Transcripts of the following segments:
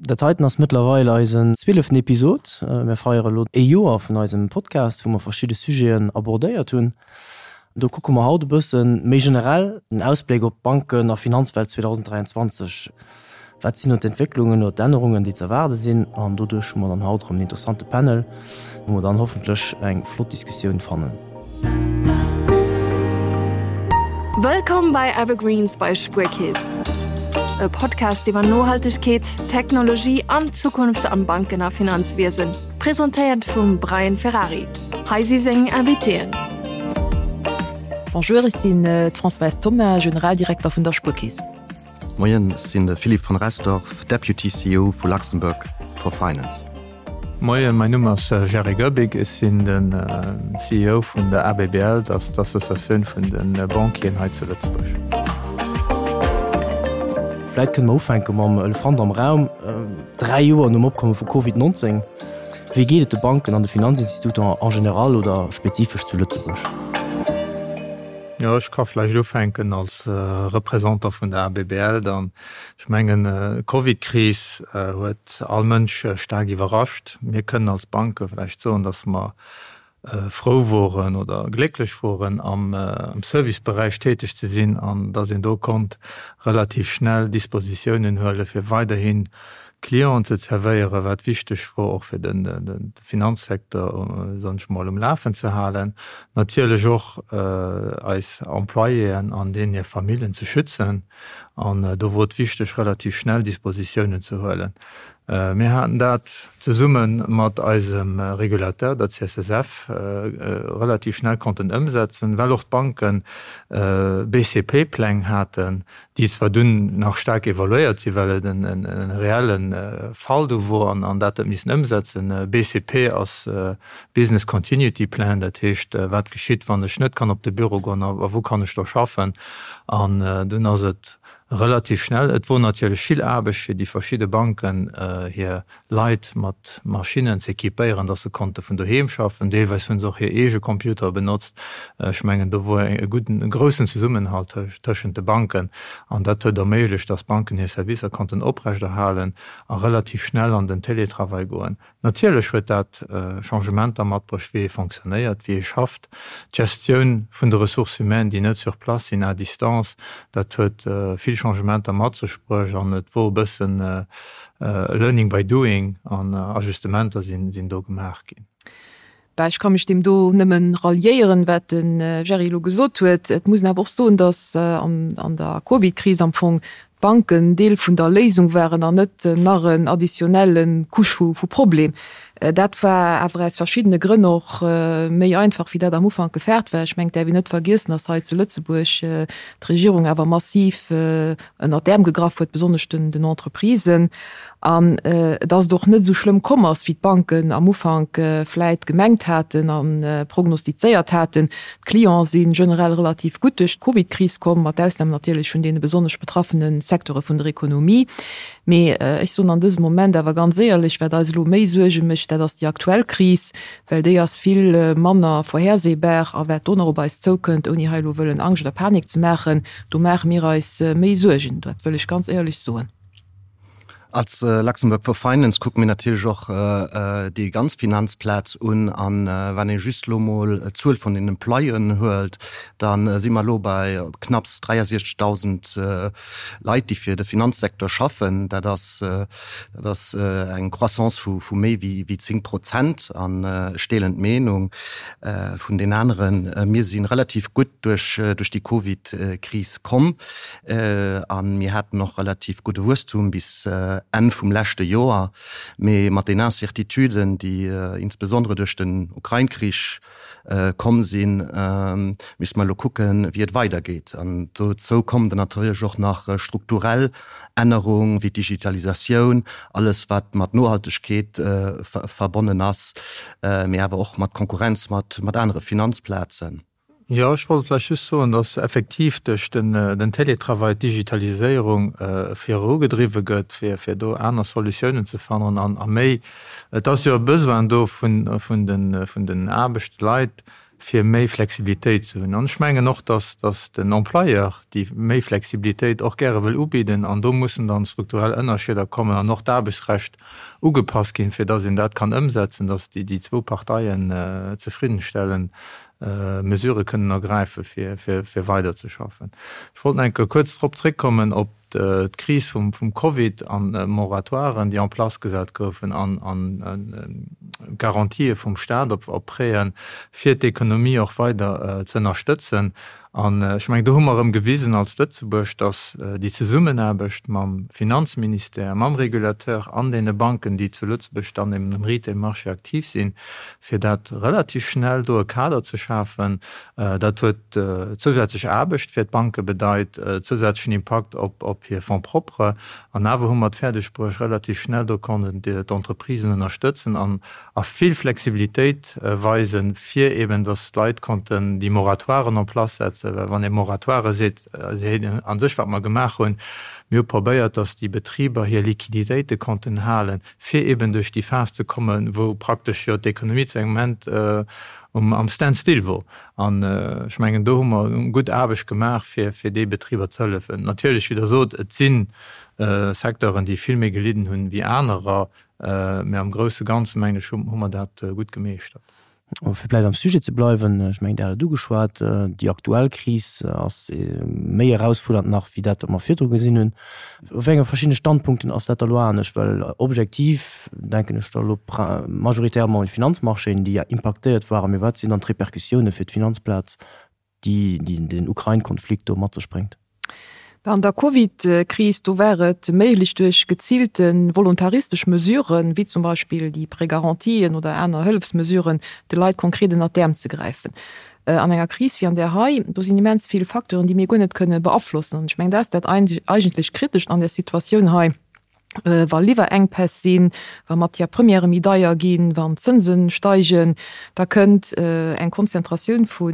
Dat heiten ass mëttlerweil eisen zwieleften Episod. Mir feiere elo ee Joer vun eisem Podcast, wou mer verschidde Sujeten abordéiert hunn. Do kucke mer haut e bësse méi generell den Ausbléck op d'Banken a Finanzwelt 2023. Wat sinn do d'Entwécklungen oder d'Ännerungen, déi ze erwaarde sinn? An doduerch hu mer dann haut erëm en interessante Panel, wou mer dann hoffentlech eng flott Diskussioun fannen. Wëllkomm bei Evergreens bei Spuerkeess, e Podcast iwwer Nohaltegkeet, Technologie an d'Zukunft am Banken a Finanzwiesen, presentéiert vum Brian Ferrari. Hei si seng Invitéen. Bonjour, ech sinn d'Françoise Thoma, Generaldirekter vun der Spuerkeess. Moien, ech sinn de Philippe von Restorff, Deputy CEO vu Luxembourg for Finance. Moien, mäin Numm ass Jerry Goebig, ech sinn de CEO vun der ABBL, dat ass d'Associatioun vun de Banquieren hei zu Lëtzebuerg. Vläit kënne mer ufänke mam Elefant am Raum, 3 Joer nom Opkomme vu Covid 19, wéi geet et de Banken an de Finanzinstituter en général oder spezifesch zu Lëtzebuerg? Jo, ech ka vläicht ufänken als Représentant vun der ABBL dann. Ech mengen, d'Covidkris huet all Mënsch staark iwwerrascht. Mir kënnen als Banke vläicht soen, datt mer frou woren oder glécklech woren, am Serviceberäich täteg ze sinn an datt een do konnt relativ schnell Dispositiounen huelen, fir weiderhin Clienten ze zerwéieren, wat wichteg wor och fir de Finanzsecteur, soen ech mol, um Lafen ze halen. Natierlech och eis Employéen an deenen hir Familljen ze schützen. An do wor et wichteg, relativ schnell Dispositiounen ze huelen. Mir haten dat zesumme mat eisem Régulateur, der CSSF, relativ schnell konnten ëmsetzen, well och d'Banken BCP-Pläng haten, déi zwar dunn nach staark evaluéiert sinn, well et e reelle Fall do wor an dat huet missen ëmsetzen. BCP ass Business Continuity Plan, dat heescht, wat geschitt, wann ech net kann op de Büro goen a wou kann ech do schaffen. An dunn ass et relativ schnell, et wor natierlech vill Aarbecht fir déi verschidde Banken hir Leit mat Maschinnen z'equipéieren, dass se konnte vun doheem schaffen. Deelweis hunn se och hir eege Computere benotzt. Ech mengen, do wor e gudden, e groussen Zesummenhalt tëschent de Banken an dat huet erméiglecht, dass d'Banken hir Servicer konnten oprechterhalen a relativ schnell an den Télétravail goen. Natierlech huet dat Changementer matbruecht, wéi ee fonctionnéiert, wéi ee schafft. D'Gestioun vun de Ressources humaines, déi net sur place sinn, à distance, dat huet vill Changementer mat sech bruecht an et wor e bëssen Learning by doing an Ajustementer sinn do gemaach ginn. Bah, ech ka mech deem do nëmmen ralliéieren, wat de Jerry elo gesot huet. Et muss een awer och soen, datt an der Covid-Kris am Fong d'Banken Deel vun der Léisung waren an net nach en additionnelle Couche vu Problem. Dat war awer aus verschiddene Grënn och méi einfach, wéi dat am Ufank gefaart war. Ech mengen, et däerf een net vergiessen, datt hei zu Lëtzebuerg d'Regierung awer massiv ënnert d'Äerm gegraff huet, besonnesch den Entreprisen, an dass et och net esou schlëmm komm ass, wéi d'Banken am Ufank vläit gemengt haten a prognostizéiert haten. D'Clienten si generell relativ gutt duerch d'Covidkris komm, mat Ausnam natierlech vun deene besonnesch betraffene Secteure vun der Ekonomie. Mee ech soen an dësem Moment awer ganz éierlech, wat eis elo méi Suerge mécht, dat ass déi aktuell Kris, well déi ass vill manner vorhersehbar a wat do nach op eis zoukënnt, ouni hei elo wëllen Angscht oder Panik ze maachen, do maache mir eis méi Suergen, dat wëll ech ganz éierlech soen. Als Luxembourg for Finance kucke mir natierlech och déi ganz Finanzplaz un. A wann ee just elo mol d'Zuel vun den Employéen huelt, da si mer elo bei knapps 63.000 Leit, déi fir de Finanzsecteur schaffen. Dat ass Dat ass eng Croissance vu méi wéi 10 Prozent. An ech deelen d'Meenung vun den aneren, mir si relativ gutt duerch déi Covid-Kris komm a mir haten och relativ gudde Wuesstum bis Enn vum leschte Joer. Mee mat den Incertituden, déi insbesondere duerch den Ukrain-Krich komm sinn, misste mer elo kucken, wéi et weidergeet. An dozou kommen dann natierlech och nach strukturell Ännerung wéi d'Digitalisatioun, alles wat mat Nohaltegkeet verbonnen ass, mee awer och mat Konkurrenz mat anere Finanzplazen. Jo, ech wollt vläicht just soen, dass effektiv duerch den Télétravail d'Digitaliséierung virugedriwwe gëtt, fir do aner Solutiounen ze fannen an a méi, et ass jo e Besoin do vun den Aarbechtsleit. fir méi Flexibilitéit ze hunn. An ech mengen och, dass, dass den Employeur déi méi Flexibilitéit och gäre wëll ubidden. An do mussen dann strukturell Ënnerscheeder kommen an och d'Aarbechtsrecht ugepasst ginn, fir dass een dat kann ëmsetzen, dass déi, déi zwou Parteien zefriddenstellend Mesurë kënnen ergräifen, fir, fir, fir weiderzeschaffen. Ech wollt nach eng Kéier kuerz drop zréckkommen op d'Kris vum Covid an d'Moratoiren, déi en place gesat goufen an d'Garantië vum Staat op Prêten, fir d'Ekonomie och weider ze ënnerstëtzen. An ech mengen, do hu mer erëm gewisen als Lëtzebuerg, datt déi Zesummenaarbecht mam Finanzministère, mam Régulateur an deene Banken, déi zu Lëtzebuerg dann eben um Retail-Marché aktiv sinn, fir dat relativ schnell do e Kader ze schafen, Dat huet zousätzlech Aarbecht fir d'Banke bedeit, zousätzlechen Impakt op hir Fonds propres. An awer hu mer et fäerdeg bruecht, relativ schnell do konnten d'Entreprisen ënnerstëtzen an a vill Flexibilitéit weisen, fir eben, datt d'Leit konnten déi Moratoiren en place setzen. Well wann ee Moratoire seet, seet een a sech, wat mer gemaach hunn, mir hu probéiert, datt déi Betriber hir Liquiditéite konnten halen, fir eben duerch déi Phas ze kommen, wou praktesch jo d'Ekonomie zu engem Moment am Standstill wor. An ech mengen, do hu mer gutt Aarbecht gemaach, fir fir déi Betriber ze hëllefen. Natierlech, wéi Der sot, et si Secteuren, déi vill méi gelidden hunn wéi anerer, mä am grousse Ganze, mengen ech, hu mer dat gutt gemeeschtert. Fir vläicht am Sujet ze bleiwen, ech mengen, Dir hat et ugeschwat, déi aktuell Kris ass méi erausfuerdernd nach wéi dat, wat mer virdru gesinn hunn. Op wéi enge verschiddene Standpunkten ass dat da elo anescht? Well objektiv denken ech da elo majoritairement un d'Finanzmarchéen, déi ja impaktéiert waren. Mee wat sinn dann d'Repercussioune fir d'Finanzplaz, déi den Ukrain-Konflikt do mat sech bréngt? An der Covid-Kris, do war et méiglech duerch geziilte volontaristesch Mesuren, wéi zum Beispill déi Prêt-garantien oder aner Hëllefsmesuren, de Leit konkret ënnert d'Äerm ze gräifen. An enger Kris wéi an där hei, do sinn immens vill Facteuren, déi mir guer net kënne beaflossen. An ech mengen, dat ass dat eigentlech Kritescht an där Situatioun hei. Wa Liwwerenkpäss sinn, wa Matières premièrë méi deier ginn, wann d'Zënse steigen, da kënnt eng Konzentratioun vu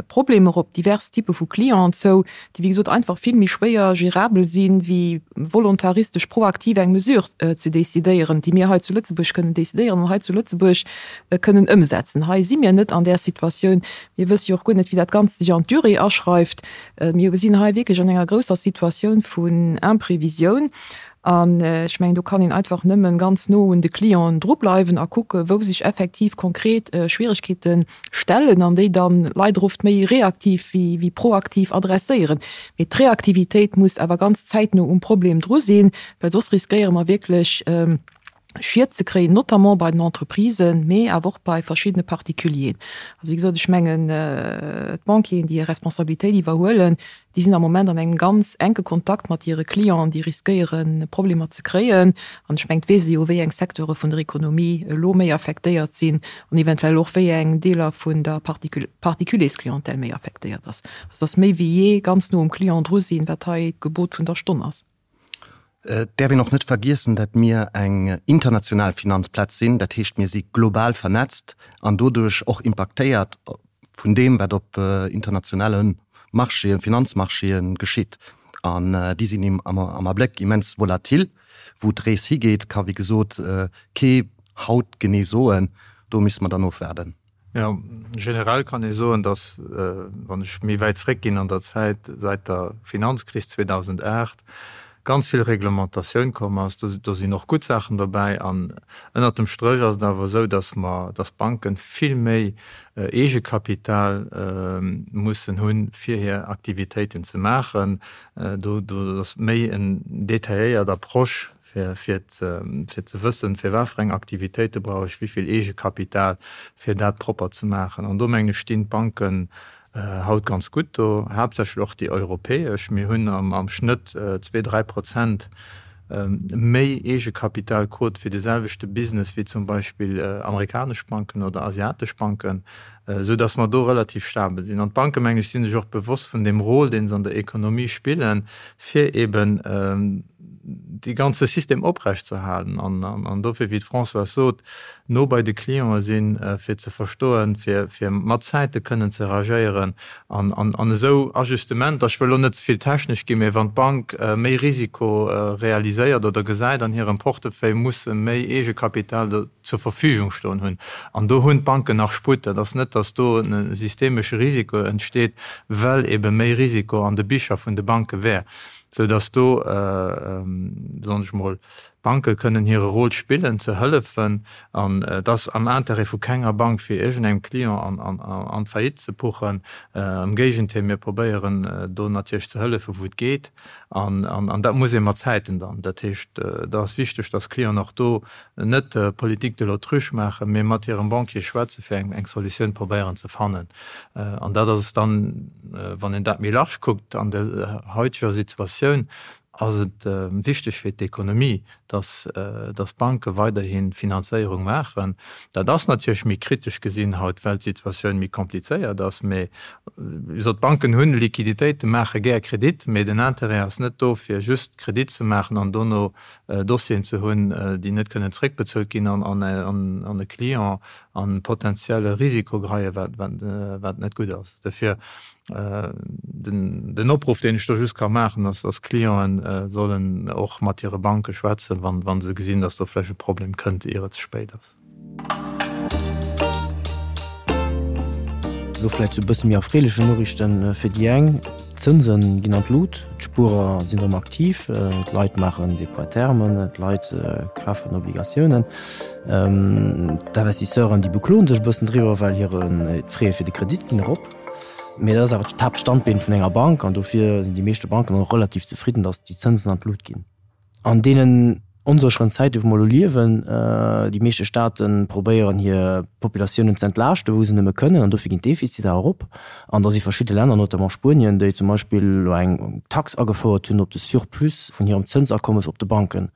Problemer op divers Typpe vu Clienten zou, déi wéi gesot einfach vill méi schwéier gérabel sinn, wéi volontaristesch proaktiv eng Mesure ze decidéieren, déi mir hei zu Lëtzebuerg kënnen decidéieren an hei zu Lëtzebuerg kënnen ëmsetzen. Hei si mir net an där Situatioun. Mir wësse jo och guer net, wéi dat Ganzt sech an d'Durée aschreift. Mir sinn hei wierklech an enger grousser Situatioun vun Imprévisioun. An ech mengen, do kann een einfach nëmmen ganz no un de Clienten drubleiwen a kucken, wou sech effektiv konkret Schwierigkeete stellen an déi dann leider oft méi reaktiv wéi proaktiv adresséieren. Mee d'Reaktivitéit muss awer ganz zäitno um Problem dru sinn, well soss riskéiere mer wierklech, Schied ze kréien, notamment bei den Entreprisen, mee awer och bei verschiddene Particulieren. Also wéi gesot, ech mengen, d'Banquieren, déi hir Responsabilitéit iwwerhuelen, déi sinn am Moment an engem ganz enke Kontakt mat hire Clienten, déi riskéieren, Problemer ze kréien. An ech mengen, et weess ee jo, wéi eng Secteure vun der Ekonomie elo méi affektéiert sinn an eventuell och wéi eng Deeler vun der Particuliersclientèle méi affektéiert ass. Also dass méi wéi jee ganz no um Client dru sinn, wat hei d'Gebot vun der Stonn ass. Et däerf een och net vergiessen, datt mir eng international Finanzplaz sinn. Dat heescht, mir si global vernetzt an doduerch och impaktéiert vun deem, wat op internationale Marchéen, Finanzmarchéen geschitt. An déi sinn am Abléck immens volatil. Wou d'Rees higeet, ka wéi gesot kee haut genee soen. Do misste mer dann ofwaarden. Jo, generell kann ee soen, datt, wann ech méi wäit zréckginn an der Zäit, säit der Finanzkris 2008 ganz vill Reglementatioun komm ass. Do sinn och gutt Saachen dobäi. An ënnert dem Stréch ass et awer esou, datt mer, datt d'Banken vill méi Eegekapital mussen hunn, fir hir Aktivitéiten ze maachen. Do ass méi en detailléiert Approche fir ze wëssen, fir wat fir eng Aktivitéite brauch ech wéi vill Eegekapital, fir dat propper ze maachen. An do, mengen ech, stinn d'Banken haut ganz gutt do, haaptsächlech och déi europäesch. Mir hunn am Schnëtt zwee, 3% méi Eegekapitalquot fir de selwechte Business wéi zum Beispill amerikanesch Banken oder asiatesch Banken, esou datt mer do relativ stabel sinn. An d'Banken, mengen ech, si sech och bewosst vun deem Rôle, dee se an der Ekonomie spillen, fir eben. dee ganze System oprechtzeerhalen. An dofir, wéi d'Françoise sot, no bei de Clientë sinn, fir ze verstoen, fir mat Zäite kënnen ze reagéieren an esou Ajustementer, ech wëll elo net ze vill technesch ginn, mä wann d'Bank méi Risiko realiséiert oder gesäit an hirem Portefeuille, muss se méi Eegekapital zur Verfügung stoen hunn. An do hunn d'Banken nach Sputt. Dat ass net, datt do e systemesche Risiko entsteet, well ebe méi Risiko an de Bicher vun de Banke wär, sou datt do, soen ech mol, d'Banke kënnen hire Rôle spillen, ze hëllefen. An et ass am Intérêt vu kenger Bank, fir iergendengem Client an d'Faillite ze puchen. Am Géigentéil, mir probéieren do natierlech ze hëllefen, wou et geet. An dat muss ee mat Zäiten dann. Dat heescht, da ass wichteg, datt d'Clienten och do net Politique de l'autruche maachen, mee mat hirem Banquier schwätzen, fir eng Solutioun probéieren ze fannen. An dat ass dann, wann een dat méi large kuckt, an der haiteger Situatioun ass et wichteg fir d'Ekonomie, dass d'Banke weiderhi Finanzéierung maachen. Dat ass natierlech méi kritesch gesinn haut, well d'Situatioun méi komplizéiert ass. Mee wéi gesot, d'Banken hunn Liquiditéiten, maache gär Kredit, mee den Intérêt ass net do, fir just Kredit ze maachen an dono Dossieren ze hunn, déi net kënnen zréckbezuelt ginn an e Client an potenzielle Risiko geheien, wat net gutt ass. Dofir den Opruff, deen ech do just ka maachen, ass, dass d'Clienten sollen och mat hire Banke schwätzen, wa se gesinn, dass do vläicht e Problem kënnt, ier et ze spéit ass. Elo vläicht zu e bësse méi erfreelechen Noriichten fir déi eng, D'Zënse ginn an d'Lut, d'Spuerer sinn erëm aktiv, d'Leit maachen Dépôts à terme, d'Leit kafen Obligatiounen. D'Investisseuren, déi bekloen sech e bëssen driwwer, well hire d'Fraie fir de Kredit ginn erop. Mee dat ass awer d'Haaptstandbeen vun enger Bank an dofir sinn déi meeschte Banken och relativ zefridden, datt déi Zënsen an d'Lut ginn. An deenen onsécheren Zäiten, wou mer elo liewen, déi meeschte Staate probéieren hir Populatiounen ze entlaaschten, wou se nëmme kënnen, an dofir ginn d'Defiziter erop. An da si verschidde Länner, notamment Spuenien, déi zum Beispill elo eng Tax agefouert hunn op de Surplus vun hirem Zënsakommes op de Banken.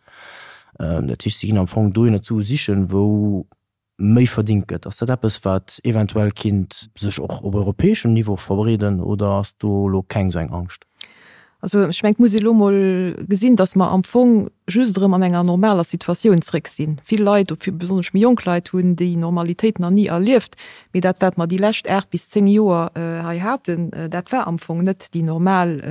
Dat heescht, si ginn am Fong dohinner d'Sue sichen, wou méi verdingt gëtt. Ass dat eppes, wat eventuell kinnt sech och op europäeschem Niveau verbreeden oder ass do elo keng esou eng Angscht? Also ech mengen, et muss ee elo mol gesinn, datt mer am Fong just erëm an enger normaler Situatioun zréck sinn. Vill Leit, besonnesch méi jonk Leit, hunn déi Normalitéit nach ni erlieft. Mee dat, wat mer déi lescht 8 bis 10 Joer hei haten, dat war am Fong net déi normal,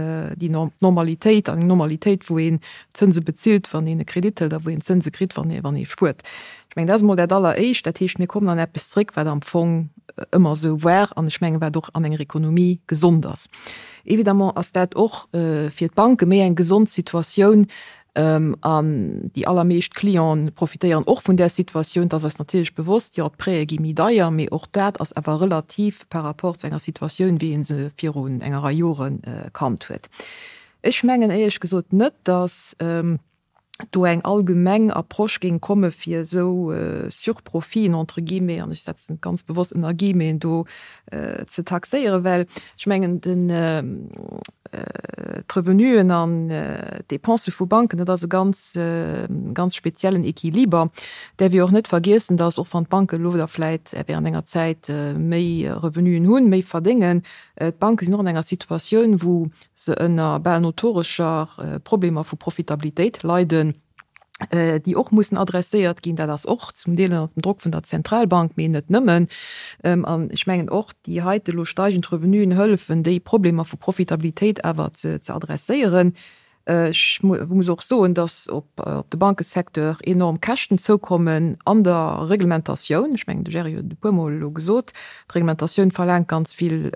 déi Normalitéit an eng Normalitéit, wou een Zënse bezilt, wann een e Kredit hëlt a wou een Zënse kritt, wann ee spuert. Ech mengen, dat ass emol dat Alleréischt. Dat heescht, mir kommen an eppes zréck, wat am Fong ëmmer esou war an ech mengen, wat och an enger Ekonomie gesond ass. Évidemment ass dat och fir d'Banke méi eng gesond Situatioun an déi allermeescht Clienten profitéieren och vun där Situatioun. Et ass eis natierlech bewosst, jo, d'Prêtë gi méi deier, mee och dat ass awer relativ par rapport zu enger Situatioun, wéi ee se virun enger Rei Jore kannt huet. Ech mengen éierlech gesot net, datt do eng allgemeng Approche géing komme fir esou Surprofiten entre guillemets, an ech setzen et ganz bewosst ënner Guillemeten, do ze taxéieren, well ech mengen den d'Revenuen an d'Dépensë vu Banken, dat ass e ganz ganz speziellen Equiliber. Däerf ee och net vergiessen, datt och wann d'Banken elo da vläit während enger Zäit méi Revenuen hunn, méi verdéngen, d'Banke sinn och an enger Situatioun wou se ënner bal notorescher Problemer vu Profitabilitéit leiden, déi och mussen adresséiert ginn. Dat ass och zum Deel ënner dem Drock vun der Zentralbank, mee net nëmmen. An ech mengen och, déi heite elo steigend Revenuen hëllefen, déi Problemer vu Profitabilitéit awer ze adresséieren. Ech muss och soen, dass op de Bankesecteur enorm Käschten zoukommen an der Reglementatioun. Ech mengen, de Jerry huet et e puermol elo gesot, d'Reglementatioun verlaangt ganz vill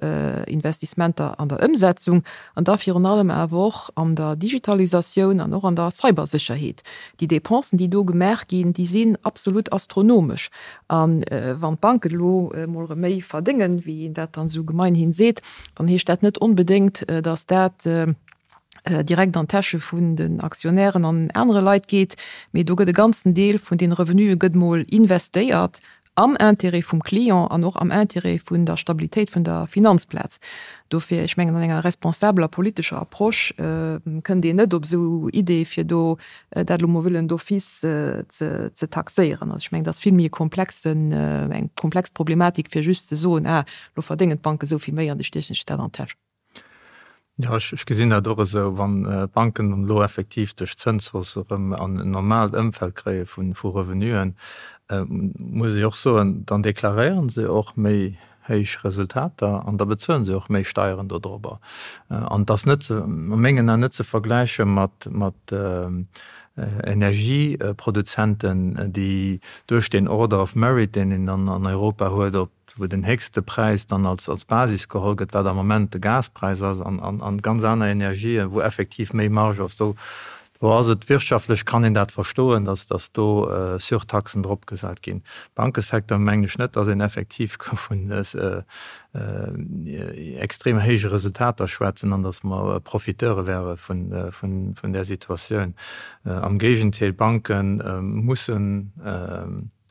Investissementer an der Ëmsetzung an da virun allem awer och an der Digitalisatioun an och an der Cybersécherheet. Déi Dépensen, déi do gemaach ginn, déi sinn absolut astronomesch. A wann d'Banken elo emol erëm méi verdéngen, wéi een dat dann esou gemeinhin seet, dann heescht dat net onbedéngt, dass dat direkt an d'Täsche vun den Aktionären an anere Leit geet, mee do gëtt e ganzen Deel vun deene Revenue gëtt mol investéiert am Intérêt vum Client an och am Intérêt vun der Stabilitéit vun der Finanzplaz. Dofir, ech mengen, an enger responsabeler politescher Approche kënnt een net op esou Idee fir do dat elo mol wëllen d'office ze taxéieren. Also ech mengen, dat ass vill méi e komplexen, eng komplex Problematik fir just ze soen, ah, elo verdéngen d'Banke esou vill méi an da stiechen ech dat an d'Täsch. Jo, ech gesinn dat och esou. Wann d'Banken dann elo effektiv duerch d'Zënshausse erëm an en normaalt Ëmfeld kréie vu Revenuen, muss ech och soen, dann deklaréiere se och méi héich Resultater an da bezuele se och méi Steieren dodrobber. An et ass net, a mengen Aen, net ze vergläiche mat Energieproduzenten, déi duerch deen Order of Merit, deen een dann an Europa huet, op wou den héchste Präis dann als als Basis geholl gëtt, wat am Moment de Gaspräis ass, an an ganz aner Energien, wou effektiv méi Marge ass, do do ass et wirtschaftlech, kann een dat verstoen, datt datt do Surtaxen drop gesat ginn. Bankesecteur mengen ech net, datt een effektiv ka vun extrem héije Resultater schwätzen an datt mer Profiteure wäre vun vun vun där Situatioun. Am Géigenteil, d'Banke mussen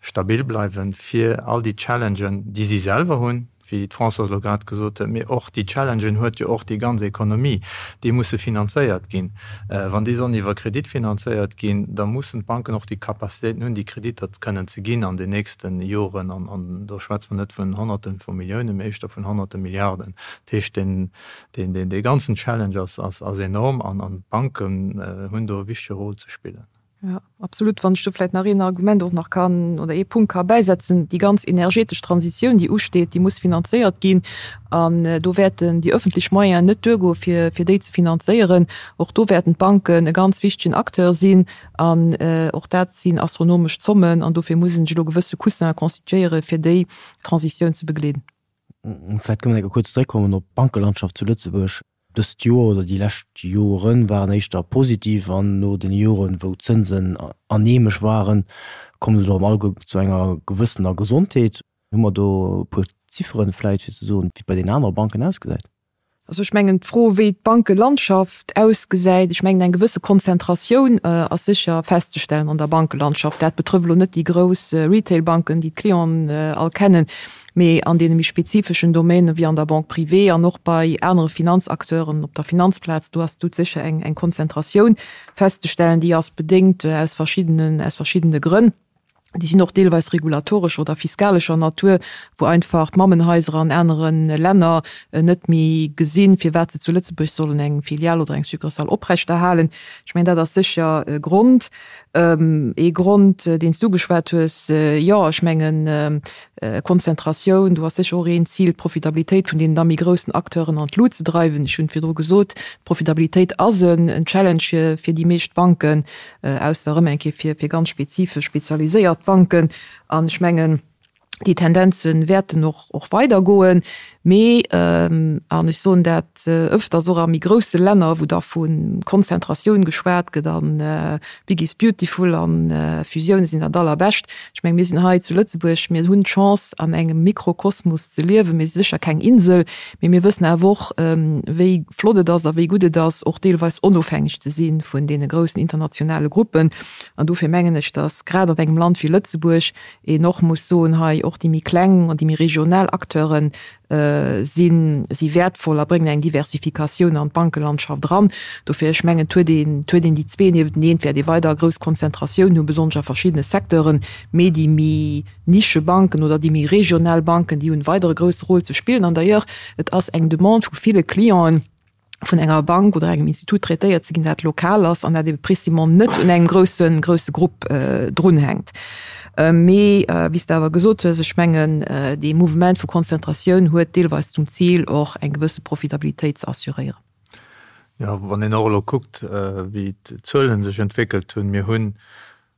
stabil bleiwen, fir all déi Challengen, déi si selwer hunn, wéi d'Françoise elo grad gesot huet, mee och déi Challengen huet jo och déi ganz Ekonomie, déi musse finanzéiert ginn. Wann déi sollen iwwer Kredit finanzéiert ginn, da mussen d'Banken och déi Capacitéiten hunn, déi Kreditter kënnen ze ginn an den nächste Joren. An do schwätze mer net vun Honnerte vu Milliounen, mee éischter vun Honnerte Milliarden. Dat heescht, dee ganzen Challenge ass enorm an d'Banken hunn do e wichtege Rôle ze spillen. Jo, absolut. Wann ech do vläicht nach een Argument och nach kann oder ee Punkt ka bäisetzen, Déi ganz energetesch Transitioun, déi usteet, déi muss finanzéiert ginn. An do wäerten déi öffentlech Moyenen net duergoe fir, fir déi ze finanzéieren. Och do wäerten d'Banken e ganz wichtegen Acteur sinn. An och dat sinn astronomesch Zommen. An dofir muss een sech elo gewësse Coussinen constituéieren, fir déi Transitioun ze begleeden. Vläicht kënne mer eng Kéier kuerz zeréckkommen op d'Bankelandschaft zu Lëtzebuerg. Dëst Joer oder déi lescht Jore waren éischter positiv an no den Joren, wou d'Zënsen aneemesch waren, komme se elo am Allge zu enger gewëssener Gesondheet. Hu mer do e puer Zifferen vläicht, fir ze soen, wéi et bei den anere Banken ausgesäit? Also ech mengen, d'Fro, wéi d'Bankelandschaft ausgesäit, ech mengen, eng gewësse Konzentratioun ass sécher festzestellen an der Bankelandschaft. Dat betrëfft elo net déi grouss Retailbanken, déi d'Clienten all kennen, mee an deene méi spezifeschen Domainen, wéi an der Banque privée an och bei anere Finanzacteuren op der Finanzplaz, do ass dout sécher eng, eng Konzentratioun festzestellen, déi ass bedéngt aus verschiddenen, aus verschiddene Grënn. Déi sinn och deelweis regulatorescher oder fiskalescher Natur, wou einfach d'Mammenhaiser an anere Länner net méi gesinn, firwat se zu Lëtzebuerg sollen eng Filial oder eng Succursale oprechterhalen. Ech mengen, dat ass sécher e Grond. Ee Grond, deen s du ugeschwat hues, jo, ech mengen, Konzentratioun, do ass sécher och een Zil, d'Profitabilitéit vun deenen da méi groussen Acteuren an d'Lut ze dreiwen. Ech hunn virdru gesot, d'Profitabilitéit ass en Challenge fir, fir déi meescht Banken, ausser erëm eng Kéier fir, fir ganz spezifesch spezialiséiert Banken. An ech mengen, déi Tendenze wäerten och, och weidergoen. Mee, an ech soen dat ëfters och a méi grousse Länner, wou da vu Konzentratioun geschwat gëtt a big is beautiful a Fusioune sinn dat Allerbescht. Ech menge mir sinn hei zu Lëtzebuerg, mir hunn d'Chance an engem Mikrokosmos ze liewen. Mir si sécher keng Insel, mee mir wëssen awer och, wéi flott et ass a wéi gutt et ass, och deelweis onofhängeg ze si vun deene groussen internationale Gruppen. An dofir mengen ech, datt grad an engem Land wéi Lëtzebuerg een och muss soen hei, och déi méi kleng an déi méi regional Acteure sinn, si wäertvoll a bréngen eng Diversifikatioun an d'Bankelandschaft eran. Dofir, ech mengen, et huet een, et huet een déi zwee niewenteneen, et wäert ee weider grouss Konzentratioun hunn, besonnesch a verschiddene Secteuren, mee déi méi Nischebanken oder déi méi regional Banken, déi hunn weider e grousse Rôle ze spillen. An d'ailleurs, et ass eng Demande vu ville Clienten, vun enger Bank oder engem Institut traitéiert ze ginn, dat lokal ass an dat ebe précisément net un engem groussen, grousse Grupp drunhänkt. Mee wéi s de awer gesot hues, ech mengen, dee Mouvement vu Konzentratioun huet deelweis zum Zil, och eng gewësse Profitabilitéit ze assuréieren. Jo, wann een och elo kuckt, wéi d'Zuele sech entwéckelt hunn, mir hunn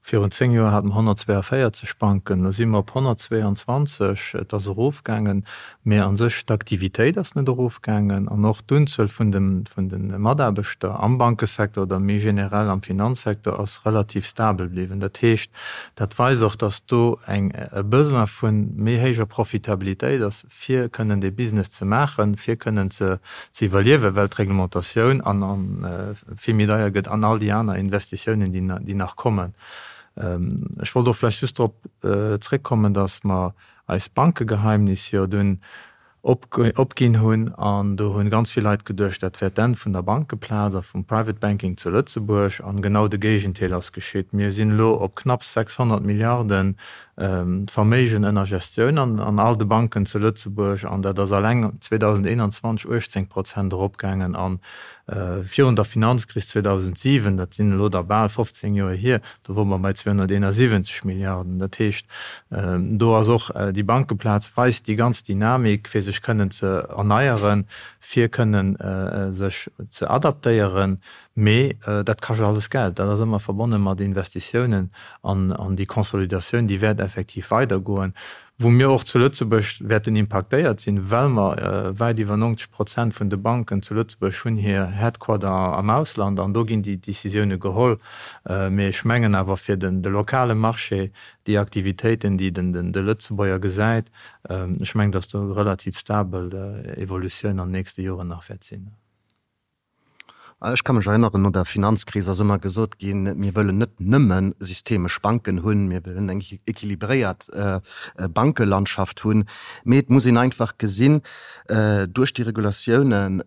Virun 10 Joer hate mer 142 Banken, elo si mer op 122. Et ass erofgaangen, mä a sech d'Aktivitéit ass net erofgaangen an och d'Unzuel vun de Mataarbechter am Bankesecteur oder méi generell am Finanzsecteur ass relativ stabel bliwwen. Dat heescht, dat weist och, datt do e Besoin vu méi héijer Profitabilitéit ass, fir kënnen dee Business ze maachen, fir kënnen ze iwwerliewen, well d'Reglementatioun vill méi deier gëtt an all déi aner Investitiounen, déi nach kommen. Ech wollt och vläicht just drop zréckkommen, datt mer eist Bankegeheimnis jo dunn opginn hunn an do hu ganz vill Leit geduecht, dat wär d'Enn vun der Bankeplaz a vum Private Banking zu Lëtzebuerg. An genau de Géigenteil ass geschitt. Mir sinn elo op knapps 600 Milliarden. D'Verméigen ënner Gestioun an all de Banken zu Lëtzebuerg, an dat ass alleng 2021 18 Prozent eropgaangen. A virun der Finanzkris 2007, dat sinn elo da bal 15 Joer hier, do wore mer bei 271 Milliarden. Dat heescht, do ass och déi Bankeplaz weist déi ganz Dynamik, fir sech kënnen ze erneieren, fir kënnen sech ze adaptéieren. Mee dat kascht alles Geld, dat ass ëmmer verbonne mat Investitiounen an déi Consolidatioun, déi wäert effektiv weidergoen, wou mir och zu Lëtzebuerg wäerten impaktéiert sinn, well mer wäit iwwer 90 Prozent vun de Banken zu Lëtzebuerg hunn hir Headquarter am Ausland an do ginn déi Décisioune geholl. Mee ech mengen awer fir de lokale Marché, déi Aktivitéiten, déi de Lëtzebuerger gesäit, ech mengen, datt do relativ stabel Evolutioun an den nächste Joren nach wäert sinn. Ech ka mech erënneren, no der Finanzkris ass ëmmer gesot ginn, mir wëllen net nëmme systemesch Banken hunn, mir wëllen eng équilibréiert Bankelandschaft hunn. Mee et muss een einfach gesinn, duerch déi Regulatiounen,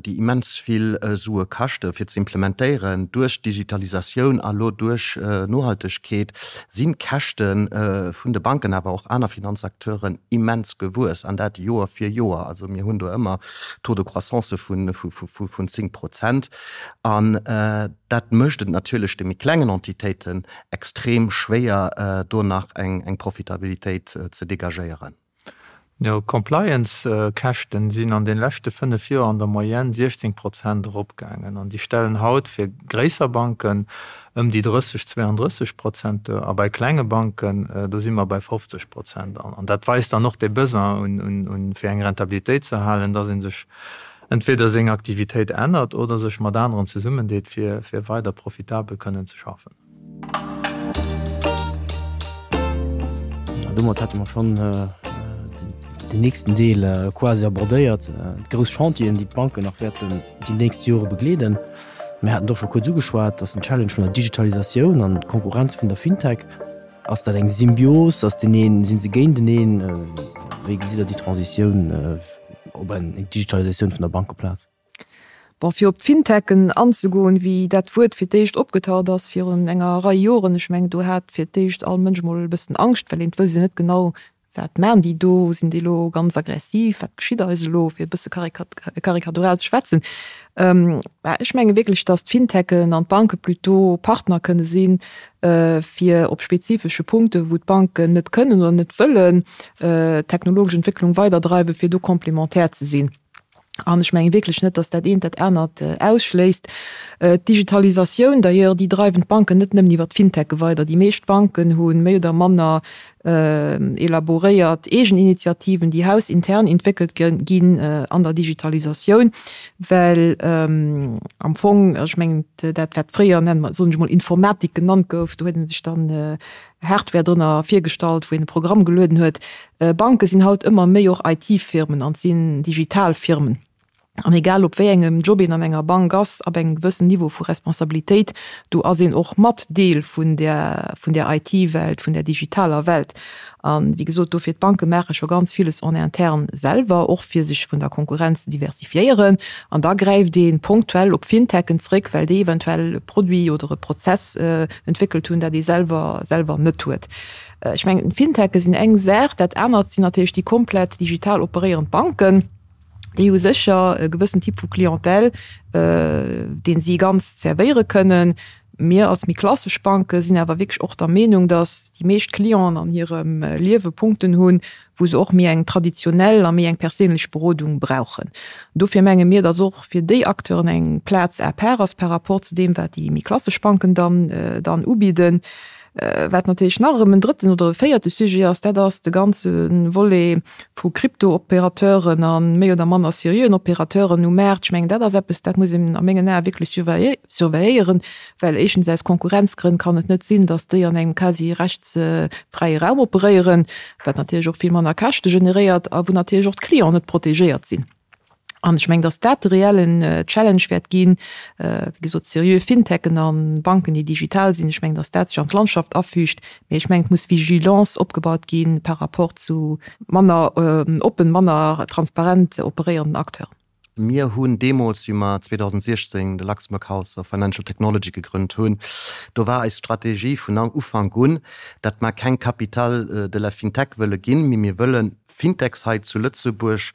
déi immens vill Sue kaschte fir ze implementéieren, duerch d'Digitalisatioun a lo duerch Nohaltegkeet, sinn d'Käschte vun de Banken, awer och aner Finanzacteuren immens gewuess, an dat Joer fir Joer. Also mir hunn do ëmmer Taux de croissance vun 10 Prozent. An dat mécht et natierlech de méi klengen Entitéiten extrem schwéier, do nach eng Profitabilitéit ze degagéieren. Jo, d'Compliance-Käschten sinn an de leschte 5 Joer an der Moyenne 16 Prozent eropgaangen an déi stellen haut fir gréisser Banken ëm déi 30, 32 Prozent duer a bei klenge Banken, do si mer bei 50 Prozent. An dat weist dann och dee Besoin un, fir eng Rentabilitéit ze erhalen, dass ee sech entweder seng Aktivitéit ännert oder sech mat aneren zesummendeet, fir weider profitabel kënnen ze schaffen. Domat hätte mer schonn den nächsten Deel quasi abordéiert, d'grouss Chantieren, déi d'Banken nach wäerten déi nächst Jore begleeden. Mir haten et och scho kuerz ugeschwat, dass den Challenge vun der Digitalisatioun an d'Konkurrenz vun der Fintech, ass dat eng Symbios, ass deen een, si se géinteneen? Wéi gesitt Der déi Transitioun op eng Digitalisatioun vun der Bankeplaz? Bon, fir op d'Fintechen anzegoen, wéi dat Wuert fir d'éischt opgetaucht ass virun enger Rei Joren, ech mengen, do hat fir d'éischt all Mënsch emol e bëssen Angscht, well een et wousst jo net genau, Wat maan déi do? Sinn déi elo ganz aggressiv? Wat geschitt eis elo? Fir e bësse karikatural ze schwätzen. Mä ech menge wierklech, datt d'Fintechen an d'Banke plutôt Partner kënne sinn, fir op spezifesche Punkte wou d'Banken net kënnen oder net wëllen d'technologesch Entwécklung weiderdreiwen, fir do complémentaire ze sinn. An ech menge wierklech net, datt dat eent dat anert ausschléisst. D'Digitalisatioun d'ailleurs, déi dreiwen d'Banken net nëmmen iwwer d'Fintechë weider. Déi meescht Banken hu méi oder manner elaboréiert eegen Initiativen, déi hausintern entwéckelt ginn an der Digitalisatioun, well am Fong, ech mengen dat wat fréier, nennen mer, soen ech emol, Informatik genannt gouf, do huet ee sech dann Hardware drënner virgestallt, wou een e Programm gelueden huet. Banke sinn haut ëmmer méi och IT-Firmen an sinn digital Firmen. An egal op wéi engem Job een an enger Bank ass, ab engem gewëssen Niveau vu Responsabilitéit, do ass een och mat Deel vun där, vun där IT-Welt, vun där digitaler Welt. A wéi gesot, dofir, d'Banke maache scho ganz villes en interne selwer, och fir sech vun der Konkurrenz ze diversifiéieren. An da gräift ee ponktuell op Fintechen zréck, well déi eventuell e Produit oder e Prozess entwéckelt hunn, dat ee selwer, selwer net huet. Ech mengen, d'Finteche sinn eng Saach, dat anert sinn natierlech déi komplett digital operéierend Banken. Déi hu sécher e gewëssen Typ vu Clientèle, dee si ganz zerwéiere kënnen. Mir als méi klassesch Banke sinn awer wierklech och der Meenung, datt déi meescht Clienten an hirem Liewe Punkten hunn, wou se och méi eng traditionell a méi eng perséinlech Berodung brauchen. Dofir menge mir, datt och fir déi Acteuren eng Plaz à part ass par rapport zu deem, wat déi méi klassesch Banken dann dann ubidden. Wat natierlech nach erëm en drëtten oder e véierte Sujet ass, dat ass de ganze Volet vu Krypto-Opérateuren a méi oder manner seriöen Opérateuren um Maart. Ech mengen, dat ass eppes, dat muss een a mengen Ae wierklech surveilléieren, well éischtens aus Konkurrenzgrënn kann et net sinn, datt déi an engem quasi rechtsfräie Raum operéieren, wat natierlech och vill manner Käschte generéiert a wou natierlech och d'Clienten net protegéiert sinn. An ech mengen, datt dat de reellen Challenge wäert ginn, wéi gesot, seriö Fintechen a Banken, déi digital sinn. Ech mengen, datt dat sech an d'Landschaft afügt. Mee ech mengen, et muss Vigilance opgebaut gi par rapport zu manner oppen, manner transparent operéierenden Acteuren. Mir hunn deemools, wéi mer 2016 de Luxembourg House of Financial Technology gegrënnt hunn, do war eis Strategie vun Ufank un, datt mer keng Capitale de la FinTech wëlle ginn, mee mir wëlle Fintechs hei zu Lëtzebuerg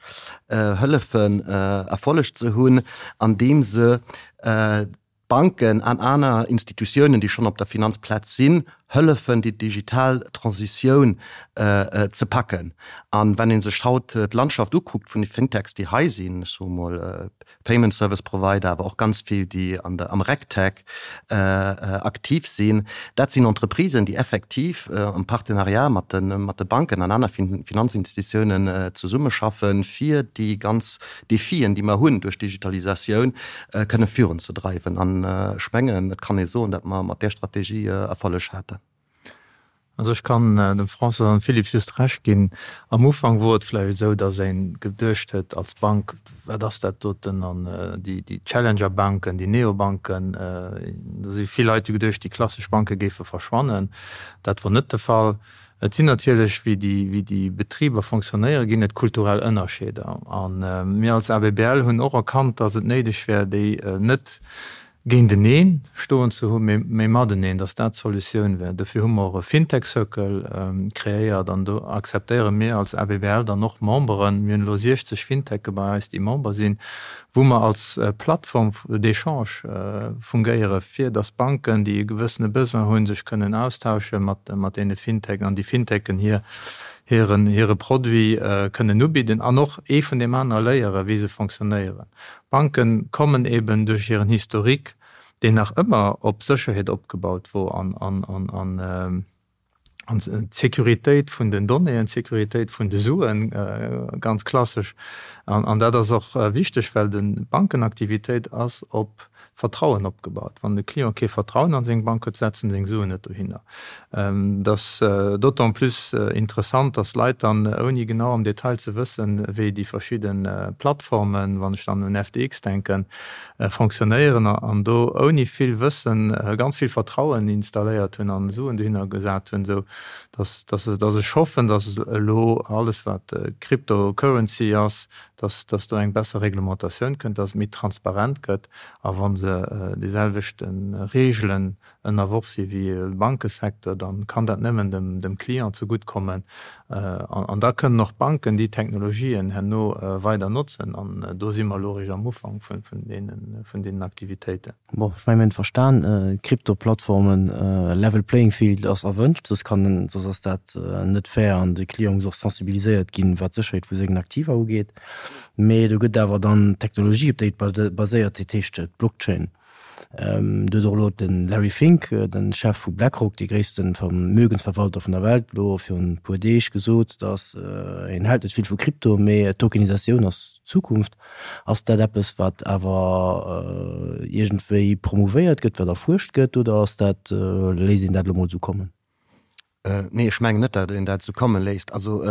hëllefen Erfolleg ze hunn, andeem se Banken an aner Institutiounen, déi schonn op der Finanzplaz sinn, hëllefen, déi digital Transitioun ze packen. An wann ee sech haut d'Landschaft ukuckt vun de Fintechs, déi hei sinn, ech soe mol Payment Service Provider, awer och ganz vill, déi an der, am RegTech aktiv sinn, dat sinn Entreprisen, déi effektiv am Partenariat mat de, mat de Banken an aner Finanzinstitutiounen zesummeschaffen, fir déi ganz Defien, déi mer hunn duerch d'Digitalisatioun, kënne virunzedreiwen. An ech mengen, et kann ee soen, datt mer mat där Strategie Erfolleg haten. Also ech kann dem François an dem Philippe just Recht ginn. Am Ufank wor et vläicht esou, datt ee geduecht huet als Bank, wat ass dat doten an déi Challenger-Banken, déi Neobanken, do si vill Leit hu geduecht, déi klassesch Banke géife verschwannen. Dat wor net de Fall. Et sinn natierlech, wéi déi, wéi déi Betriber fonctionnéieren, ginn et kulturell Ënnerscheeder. A mir als ABBL hunn och erkannt, datt et néideg wär, déi net géinteneen stoen ze hunn, mee, mee mateneen, datt dat d'Solutioun wär. Dofir hu mer och e Fintech Circle kreéiert an do akzeptéiere mir als ABBL dann och Memberen. Mir hunn elo 60 Finteche bei eis, déi Member sinn, wou mer als Plattform d'échange fungéiere fir datt Banken, déi e gewëssene Besoin hunn, sech kënnen austausche mat deene Fintechen an déi Fintechen hir hire Produit kënnen ubidden an och ee vun deem anere léiere wéi se fonctionnéieren. Banke kommen eben duerch hiren Historique, deen nach ëmmer op Sécherheet opgebaut wor an an An d'Sécuritéit vun den Donnéeën, d'Sécuritéit vun de Suen, ganz klassesch. An dat ass och wichteg, well d'Bankenaktivitéit ass op Vertrauen opgebaut. Wann de Client kee Vertrauen an seng Bank huet, setzt en seng Suen net dohinner. Et ass d'autant plus interessant, dass Leit dann, ouni genau am Detail ze wëssen, wéi déi verschidde Plattformen, wann ech dann un FTX denken, fonctionnéieren an do ouni vill Wëssen ganz vill Vertrauen installéiert hunn an Suen dohinner gesat hunn, esou dass dass ech hoffen, dass elo alles wat Cryptocurrency ass, dass dass do eng besser Reglementatioun kënnt, dass et méi transparent gëtt a wa se déi selwechte Reegelen ënnerworf si wéi e Bankesecteur, da kann dat nëmmen dem Client zegutt kommen. An da kënnen och d'Banken déi Technologien herno weider notzen. An do si mer elo eréischt am Ufank vun deenen Aktivitéiten. Bon, ech mengen, mir hunn verstan, Krypto-Plattformen, level playing field ass erwënscht, soss kann, soss ass dat net fair an de Client muss och sensibiliséiert ginn, wat d'Sécherheet vu sengen Aktiva ugeet. Mee do gëtt awer dann d'Technologie, op déi et baséiert, dat heescht d'Blockchain. Do huet och elo de Larry Fink, de Chef vu BlackRock, dee gréisste Vermögensverwalter vun der Welt, elo virun e puer Deeg gesot, datt hien hält net vill vu Krypto, mee Tokenisatioun ass d'Zukunft. Ass dat eppes, wat awer iergendwéi promouvéiert gëtt, wat erfuerscht gëtt, oder ass dat, léisst een dat elo mol esou kommen? Nee, ech mengen net, datt een dat esou komme léisst. Also,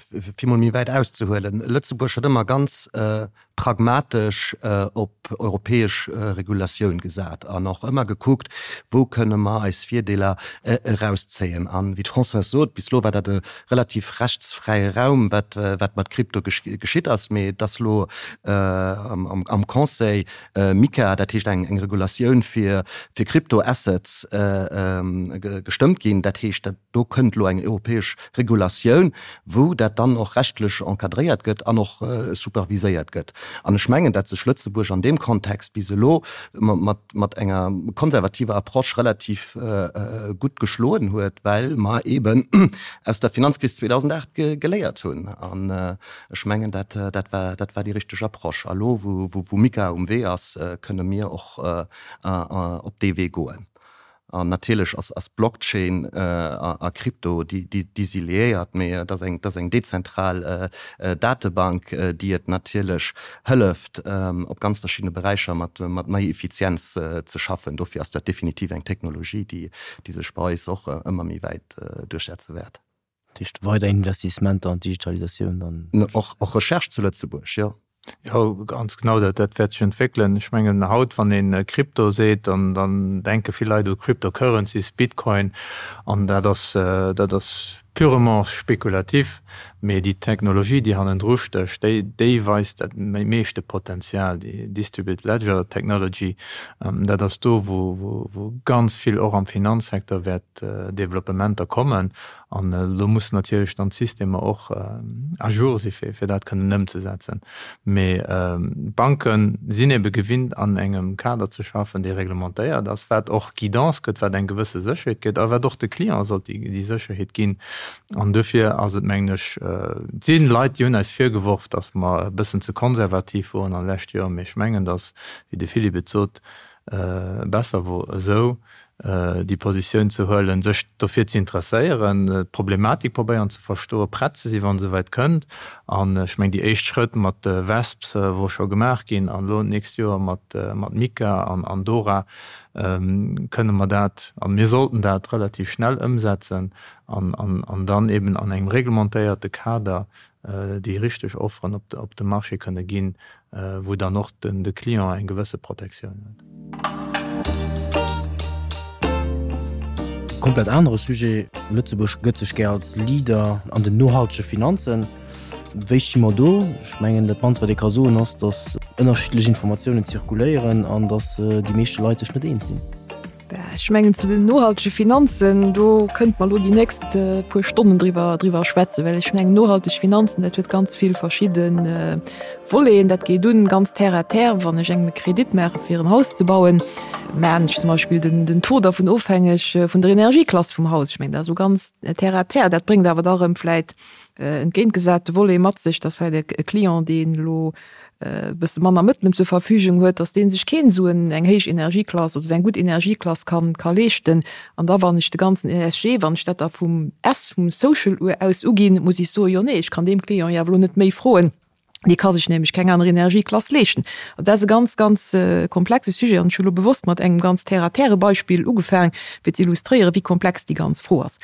fir mol méi wäit auszehuelen, Lëtzebuerg huet ëmmer ganz pragmatesch op europäesch Regulatioun gesat an och ëmmer gekuckt, wou kënne mer eis Virdeeler erauszéien. An, wéi d'Françoise sot, bis elo war dat e relativ rechtsfräie Raum, wat wat mat Krypto geschitt ass. Mee et ass elo am Conseil MiCA, dat heescht eng Regulatioun fir Crypto-Assets, gestëmmt ginn. Dat heescht, do kënnt elo eng europäesch Regulatioun, wou dat dann och rechtlech encadréiert gëtt an och superviséiert gëtt. An ech mengen, datt sech Lëtzebuerg an deem Kontext bis elo mat enger konservativer Approche relativ gutt geschloen huet, well mer eeben aus der Finanzkris 2008 geléiert hunn. Ech mengen, dat, dat war, dat war déi richteg Approche. A lo, wou, wou MiCA um Wee ass, kënne mir och op dee Wee goen. An natierlech ass, ass Blockchain a Krypto, déi, déi, déi si liéiert, mee et ass eng, et ass eng dezentral Datebank, déi et natierlech hëlleft, op ganz verschiddene Beräicher mat, mat méi Effizienz ze schaffen. Dofir ass dat definitiv eng Technologie, déi, déi sech bei eis och ëmmer méi wäit duerchsetze wäert. Dat heescht weider Investissementer an d'Digitalisatioun dann? Och Recherche zu Lëtzebuerg, jo. Jo, ganz genau, dat dat wäert sech entwéckelen. Ech mengen haut, wann ee Krypto seet, dann dann denke vill Leit u Cryptocurrencies, Bitcoin, an dat ass dat ass. purement spekulativ, mee déi Technologie, déi hannendru stécht, déi, déi weist dat meeschte Potenzial, déi Distributed Ledger Technology, dat ass do, wou, wou, wou ganz vill och am Finanzsecteur wäert Developpementer kommen. An do mussen natierlech dann d'Systemer och à jour si fir, fir dat kënnen ëmzesetzen. Mee d'Banke sinn ebe gewinnt an engem Kader ze schaffen, dee reglementéiert ass, wat och Guidance gëtt, wat eng gewësse Sécherheet gëtt a wat och de Client sollt déi Sécherheet ginn. An dofir ass et, mengen ech, et si Leit, déi hunn eis virgeworf, datt mer e bëssen ze konservativ woren an de leschte Joren, mee ech mengen, datt, wéi de Philippe et sot, besser wor esou, déi Positioun ze huelen, sech dofir ze interesséieren, d'Problematik probéieren ze verstoen, prett ze sinn, wa se esouwäit kënnt. An ech mengen, déi éischt Schrëtt mat de WESPs wor scho gemaach ginn an elo d'nächst Joer mat MiCA an DORA kënne mer dat, a mir sollten dat relativ schnell ëmsetzen an dann eben an engem reglementéierte Kader déi richteg Offeren op de Marché kënne ginn, wou dann och de Client eng gewësse Protektioun huet. Komplett anere Sujet, Lëtzebuerg gëtt sech gär als Leader an den nohaltege Finanzen. Wéi sti mer do? Ech mengen, dat mannst wat ee ka soen ass, datt ënnerschiddlech Informatiounen zirkuléieren an datt déi meeschte Leit sech net eens sinn. Ech mengen zu den nohaltege Finanzen, do kënnte mer elo déi nächst puer Stonnen driwwer, driwwer schwätzen, well ech mengen nohalteg Finanzen, dat huet ganz vill verschidde Voleten. Dat geet un ganz terre à terre, wann ech engem e Kredit maache fir en Haus ze bauen, maachen ech zum Beispill den, den Taux dervun ofhängeg vun der Energieklass vum Haus. Ech mengen dat ass esou ganz terre à terre. Dat bréngt awer da erëm vläit entgéintgesate Volet mat sech, dass vläit e Client, deen elo e bësse manner Mëttelen zur Verfügung huet, dass dee sech keen esou eng héich Energieklass oder esou eng gutt Energieklass kann ka leeschten. An da wann ech de ganzen ESG, wann ech dat da vum S, vum Social aus uginn, muss ech soen, jo nee, ech kann deem Client jo awer elo net méi froen, dee ka sech nämlech keng aner Energieklass leeschten. Also dat ass e ganz, ganz komplexe Sujet an ech hu elo bewosst mat engem ganz terre-à-terre Beispill ugefaang, fir ze illustréieren, wéi komplex déi ganz Fro ass.